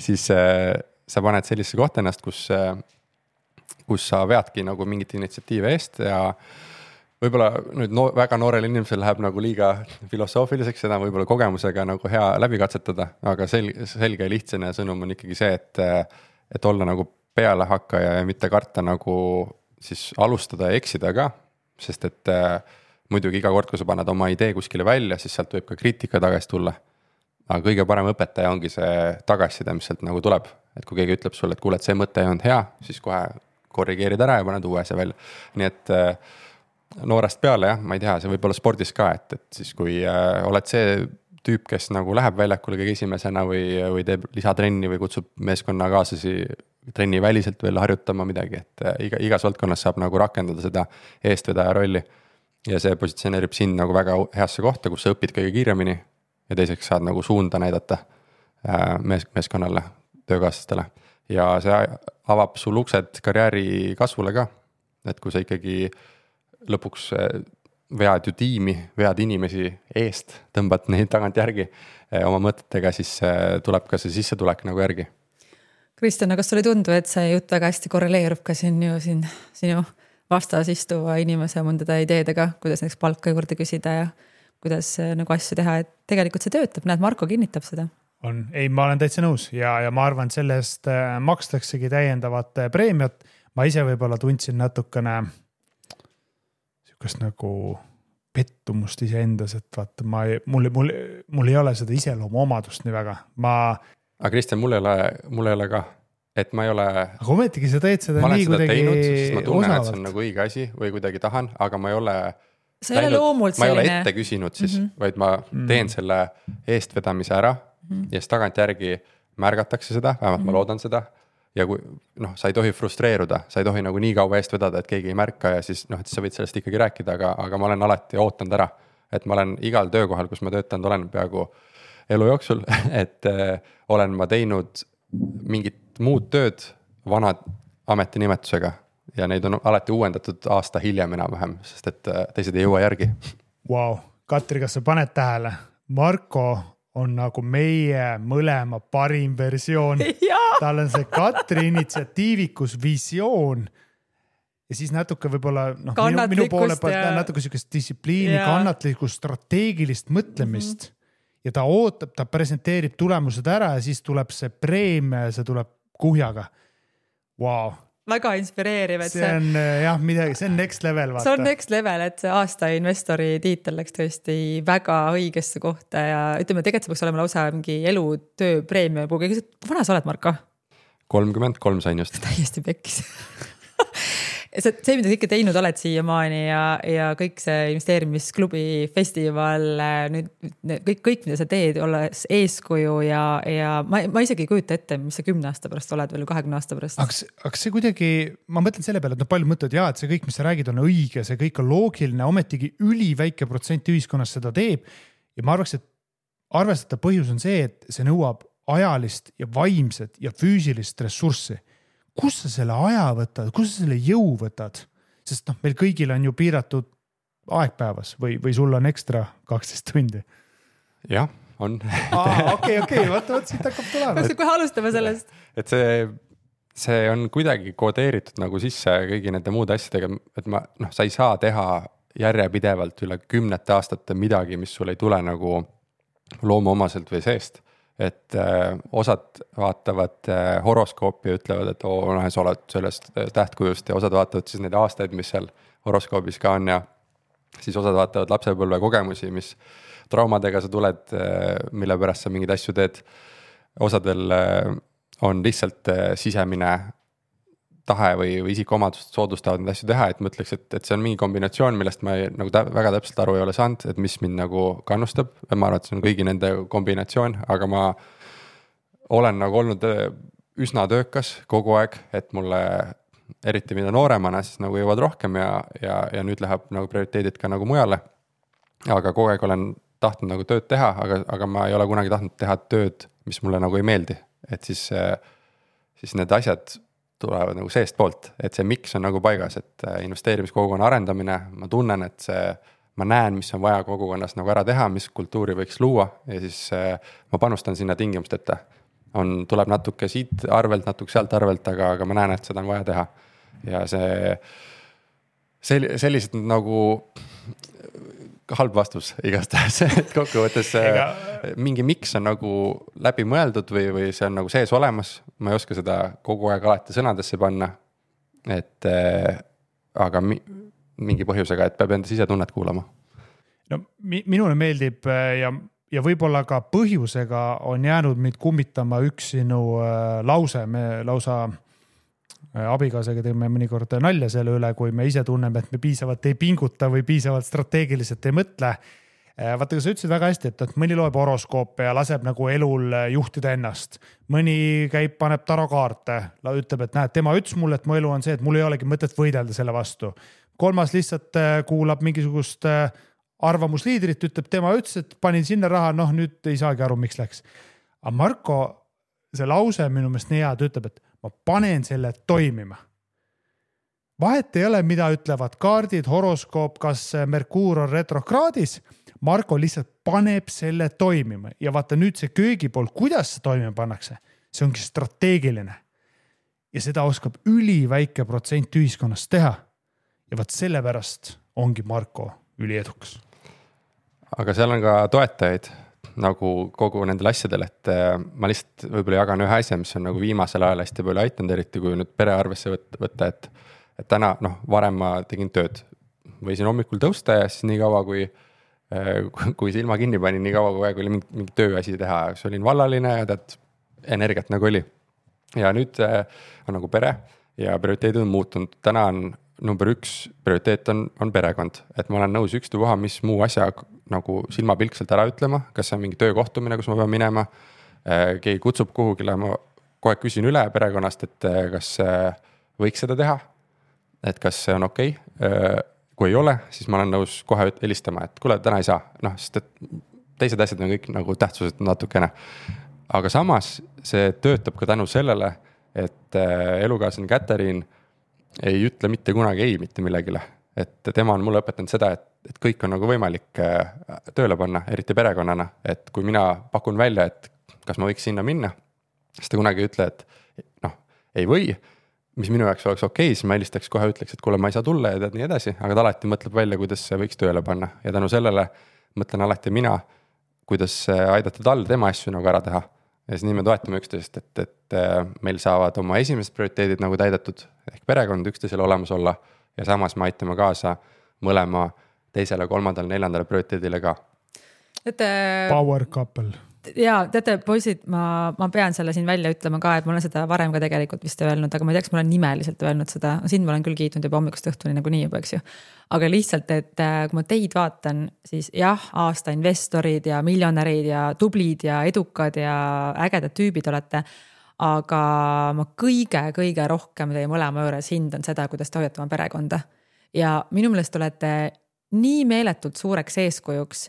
siis sa paned sellise kohta ennast, kus sa veadki nagu mingit initsiatiive eest ja võib-olla nüüd väga noorel inimesel läheb nagu liiga filosoofiliseks, seda võib-olla kogemusega nagu hea läbi katsetada, aga selge ja lihtsane sõnum on ikkagi see, et olla nagu pealehakkaja ja mitte karta nagu siis alustada ja eksida ka, sest et muidugi iga kord, kui sa paned oma idee kuskile välja, siis sealt võib ka kriitika tagasi tulla. Aga kõige parem õpetaja ongi see tagasiside, mis sealt nagu tuleb, et kui keegi ütleb sulle, et kuule, et see mõte ei olnud hea, siis kohe korrigeerid ära ja paned uue asja välja. Nii et noorest peale, jah, ma ei tea, see võib olla spordis ka, et siis kui oled see tüüp, kes nagu läheb väljakule kõige esimesena või teeb lisatrenni või kutsub meeskonna kaaslasi trenni väliselt veel harjutama midagi, et igas valdkonnas saab nagu rakendada seda eestvedaja rolli ja see positsioneerib sind nagu väga heasse kohta, kus sa õpid kõige kiiremini ja teiseks saad nagu suunda näidata meeskonnale, töökaaslastele ja see avab sul uksed karjääri kasvule ka, et kui sa ikkagi lõpuks vead ju tiimi, vead inimesi eest, tõmbad neid tagant järgi oma mõtetega, siis tuleb ka see sissetulek nagu järgi. Kristjan, kas sulle ei tundu, et see jutt väga hästi korreleerub ka sinu vastas istuva inimese mõndade ideedega, kuidas näiteks palka juurde küsida ja kuidas nagu asju teha, et tegelikult see töötab, näed, Marko kinnitab seda. Ei, ma olen täitsa nõus ja ma arvan, et sellest makstaksegi täiendavat preemiat. ma ise võib-olla tundsin natukene sihukest nagu pettumust iseendas, et vaata, mul ei ole seda iseloomu omadust nii väga. Aga Kristjan, mul ei ole ka, et ma ei ole. Aga ometigi sa teed seda nii kuidagi teinud, siis ma tunnen, et see on nagu õige asi või kuidagi tahan, aga ma ei ole sa ei ole loomult selline. Ma ei ole ette küsinud siis, vaid ma teen selle eestvedamise ära ja siis tagantjärgi märgatakse seda, vähemalt ma loodan seda. Ja kui sa ei tohi frustreeruda, sa ei tohi nagu nii kaua eest vedada, et keegi ei märka ja siis et sa võid sellest ikkagi rääkida, aga ma olen alati ootanud ära, et ma olen igal töökohal, kus ma töötanud olen peaaegu elu jooksul, et olen ma teinud mingit muud tööd vana ametinimetusega ja neid on alati uuendatud aasta hiljem enam-vähem, sest et teised ei jõua järgi. Wow. Katri, kas sa paned tähele? Marko on nagu meie mõlema parim versioon. Tal on see Katri initsiatiivikus visioon ja siis natuke võib-olla minu poole pealt natuke sükest distsipliini, kannatlikkust, strateegilist mõtlemist ja ta ootab, ta presenteerib tulemused ära ja siis tuleb see preemia ja see tuleb kuhjaga. Wow. Väga inspireeriv, et see on midagi, see on next level. Vaata. See on next level, et see aasta investori tiitel läks tõesti väga õigesse kohta ja ütleme, tegelikult see peaks olema lausa mingi elutöö preemia. Vana sa oled, Marko? 33 sain just. Täiesti pekkis. See, mida kõike teinud oled siiamaani ja kõik see investeerimisklubi festival, nüüd kõik, mida sa teed, olles eeskuju ja ma isegi ei kujuta ette, mis sa 10 aasta pärast oled veel 20 aasta pärast. Aga see kuidagi, ma mõtlen selle peale, et palju mõtled, et see kõik, mis sa räägid, on õige, see kõik on loogiline, ometigi üliväike protsent ühiskonnas seda teeb ja ma arvaks, et arvestatav põhjus on see, et see nõuab ajalist ja vaimset ja füüsilist ressurssi. Kus sa selle aja võtad, kus sa selle jõu võtad? Sest meil kõigil on ju piiratud aegpäevas või sul on ekstra 12 tundi? Jah, on. Okei, vaata, siit hakkab tulema. Kohe alustame sellest. Et see on kuidagi kodeeritud nagu sisse kõigi nende muude asjadega, et sa ei saa teha järjepidevalt üle 10 aastate midagi, mis sul ei tule nagu loomuomaselt või seest. Et osad vaatavad horoskoopi ja ütlevad, et sa oled sellest tähtkujust ja osad vaatavad siis neid aastaid, mis seal horoskoobis ka on ja siis osad vaatavad lapsepõlve kogemusi, mis traumadega sa tuled, mille pärast sa mingeid asju teed. Osadel on lihtsalt sisemine tahe või isikuomadust soodustavad neid asju teha, et ma ütleks, et see on mingi kombinatsioon, millest ma nagu väga täpselt aru ei ole saanud, et mis mind nagu kannustab. Ma arvan, et see on kõigi nende kombinatsioon, aga ma olen nagu olnud üsna töökas kogu aeg, et mulle eriti mida nooremana siis nagu jõuad rohkem ja nüüd läheb nagu prioriteedid ka nagu mujale. Aga kogu aeg olen tahtnud nagu tööd teha, aga ma ei ole kunagi tahtnud teha tööd, mis mulle nagu ei meeldi. Et siis need asjad tulevad nagu seest poolt, et see miks on nagu paigas, et investeerimiskogukonna arendamine, ma tunnen, et ma näen, mis on vaja kogukonnas nagu ära teha, mis kultuuri võiks luua ja siis ma panustan sinna tingimusteta. Tuleb natuke siit arvelt, natuke sealt arvelt, aga ma näen, et seda on vaja teha. Ja sellised nagu halb vastus igastahes, et kokkuvõttes mingi miks on nagu läbi mõeldud või see on nagu sees olemas. Ma ei oska seda kogu aeg alati sõnadesse panna, aga mingi põhjusega, et peab enda sisetunnet kuulama. No, minule meeldib ja võib-olla ka põhjusega on jäänud mind kummitama üks sinu lause. Me lausa abikaasaga teeme mõnikord nalja selle üle, kui me ise tunneme, et me piisavalt ei pinguta või piisavalt strateegiliselt ei mõtle. Vaata, sa ütlesid väga hästi, et mõni loeb horoskoope ja laseb nagu elul juhtida ennast. Mõni käib, paneb tarokaarte, ütleb, et näed, tema ütles mulle, et mu elu on see, et mul ei olegi mõtet võidelda selle vastu. Kolmas lihtsalt kuulab mingisugust arvamusliidrit, ütleb, tema ütles, et panin sinna raha, nüüd ei saagi aru, miks läks. Aga Marko, see lause minu meelest nii hea, ta ütleb, et ma panen selle toimima. Vahet ei ole, mida ütlevad kaardid, horoskoop, kas Merkuur on retrokraadis. Marko lihtsalt paneb selle toimima ja vaata nüüd see köögipool, kuidas see toimima pannakse, see ongi strateegiline. Ja seda oskab üliväike protsent ühiskonnast teha. Ja vaat sellepärast ongi Marko üliedukas. Aga seal on ka toetajaid. nagu kogu nendel asjadel, et ma lihtsalt võib-olla jagan ühe asja, mis on nagu viimasel ajal hästi palju aitanud, eriti kui nüüd pere arvesse võtta, et täna, varem ma tegin tööd, võisin hommikul tõusta ja siis nii kaua, kui silma kinni panin, nii kaua, kui aeg oli mingi tööasi teha, siis olin vallaline ja tead, energiat nagu oli. Ja nüüd on nagu pere ja prioriteedid on muutunud, täna on number 1 prioriteet on perekond, et ma olen nõus ükstapuha, mis muu asja nagu silmapilkselt ära ütlema, kas see on mingi töökohtumine, kus ma pean minema, keegi kutsub kuhugile, ma kohe küsin üle perekonnast, et kas võiks seda teha, et kas see on okei. Kui ei ole, siis ma olen nõus kohe helistama, et kuule, täna ei saa, sest et teised asjad on kõik nagu tähtsused natukene. Aga samas see töötab ka tänu sellele, et elukaaslane Katariin ei ütle mitte kunagi ei mitte millegile, et tema on mulle õpetanud seda, et kõik on nagu võimalik tööle panna, eriti perekonnana, et kui mina pakun välja, et kas ma võiks sinna minna, siis ta kunagi ei ütle, et ei või, mis minu jaoks oleks okei, siis ma helistaks kohe ütleks, et kuule, ma ei saa tulla ja tead nii edasi, aga ta alati mõtleb välja, kuidas see võiks tööle panna ja tänu sellele mõtlen alati mina, kuidas aidata tal tema asju nagu ära teha. Ja siis nii me toetame üksteist, et meil saavad oma esimesed prioriteedid nagu täidetud, ehk perekond üksteisele olemas olla ja samas me aitame kaasa mõlema teisele, 3., 4. prioriteedile ka. Power couple. Ja teate, poisid, ma pean selle siin välja ütlema ka, et ma olen seda varem ka tegelikult vist öelnud, aga ma ei tea, kas ma olen nimeliselt öelnud seda, siin ma olen küll kiitnud juba hommikust õhtuni nagu nii juba, eks ju. Aga lihtsalt, et kui ma teid vaatan, siis jah, aasta investorid ja miljonärid ja tublid ja edukad ja ägedad tüübid olete, aga ma kõige rohkem teie mõlema juures hindan seda, kuidas te hoiate oma perekonda. Ja minu meelest olete nii meeletult suureks eeskujuks,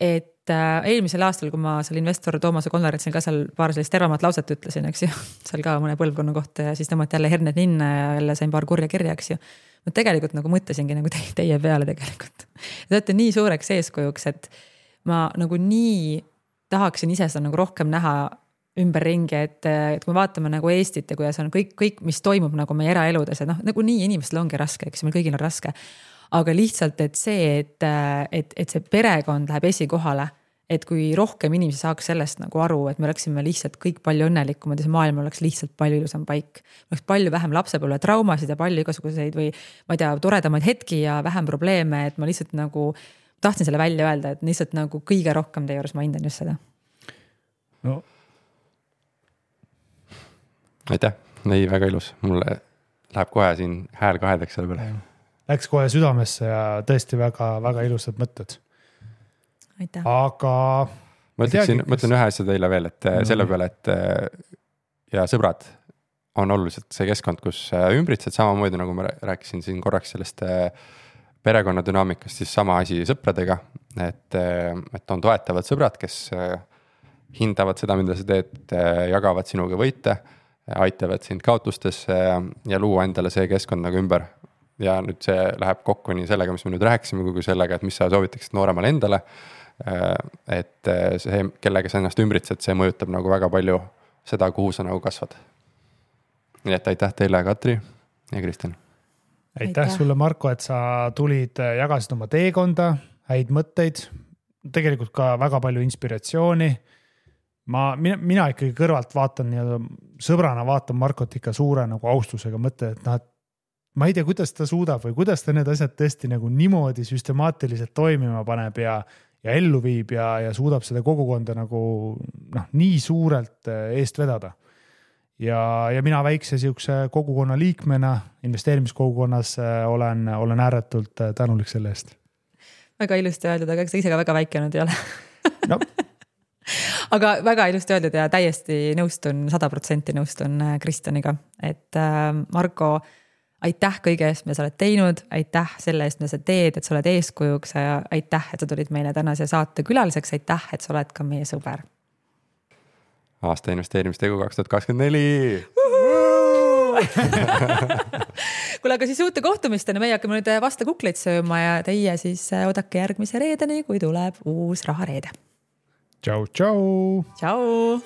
et eelmisel aastal, kui ma seal investor Toomase konverentsil ka seal paar sellist tervamat lauset ütlesin, eks ju, seal ka mõne põlvkonna kohta ja siis tõmmati jälle herned ninna ja jälle sain paar kurja kirja, eks ju. Ma tegelikult nagu mõtlesingi nagu teie peale tegelikult. Te olete nii suureks eeskujuks, et ma nagu nii tahaksin ise seda nagu rohkem näha ümberringi, et kui me vaatame nagu Eestit ja kuidas on kõik, mis toimub nagu meie eraeludes, et nagu nii inimestel ongi raske, eks meil kõigil on raske. Aga lihtsalt, et see, et see perekond läheb esikohale, et kui rohkem inimesi saaks sellest nagu aru, et me oleksime lihtsalt kõik palju õnnelikumad ja see maailm oleks lihtsalt palju ilusam paik. Oleks palju vähem lapsepõlve traumasid ja palju igasuguseid või ma ei tea, toredamaid hetki ja vähem probleeme, et ma lihtsalt nagu tahtsin selle välja öelda, et lihtsalt nagu kõige rohkem teie juures ma hindan just seda. No. Aitäh, ei väga ilus, mulle läheb kohe siin hääl kahedeks selle peale. Läks kohe südamesse ja tõesti väga ilusad mõtted. Aitäh. Aga ma ütlen ühe asja teile veel, et selle peale, et ja sõbrad on oluliselt see keskkond, kus ümbritsed samamoodi, nagu ma rääkisin siin korraks sellest perekonna dünaamikast, siis sama asi sõpradega, et on toetavad sõbrad, kes hindavad seda, mida sa teed, jagavad sinuga võite, aitavad sind kaotustesse ja luua endale see keskkond nagu ümber. Ja nüüd see läheb kokku nii sellega, mis me nüüd rääkisime, kui sellega, et mis sa soovitaksid nooremale endale, et see, kellega sa ennast ümbritsed, see mõjutab nagu väga palju seda, kuhu sa nagu kasvad. Nii et aitäh teile, Katri ja Kristjan. Aitäh sulle, Marko, et sa tulid, jagasid oma teekonda, häid mõtteid, tegelikult ka väga palju inspiratsiooni. Mina ikkagi kõrvalt vaatan ja sõbrana vaatan Markot ikka suure nagu austusega mõtte, et ma ei tea, kuidas ta suudab või kuidas ta need asjad tõesti nagu niimoodi süstemaatiliselt toimima paneb ja ellu viib ja suudab seda kogukonda nagu nii suurelt eest vedada. Ja mina väikse siukse kogukonna liikmena, investeerimiskogukonnas olen ääretult tänulik selle eest. Väga ilusti öeldud, aga ise ka väga väike nüüd ei ole. No. Aga väga ilusti öeldud ja täiesti nõustun, 100% nõustun Kristjaniga, et Marko, aitäh kõige eest, mida sa oled teinud, aitäh selle eest, mida sa teed, et sa oled eeskujuks ja aitäh, et sa tulid meile tänase saate külaliseks, aitäh, et sa oled ka meie sõber. Aasta investeerimistegu 2024! Kuule, aga siis uute kohtumistena meie hakkame nüüd vasta kukleid sööma ja teie siis oodake järgmise reedeni, kui tuleb uus rahareede. Tšau! Tšau!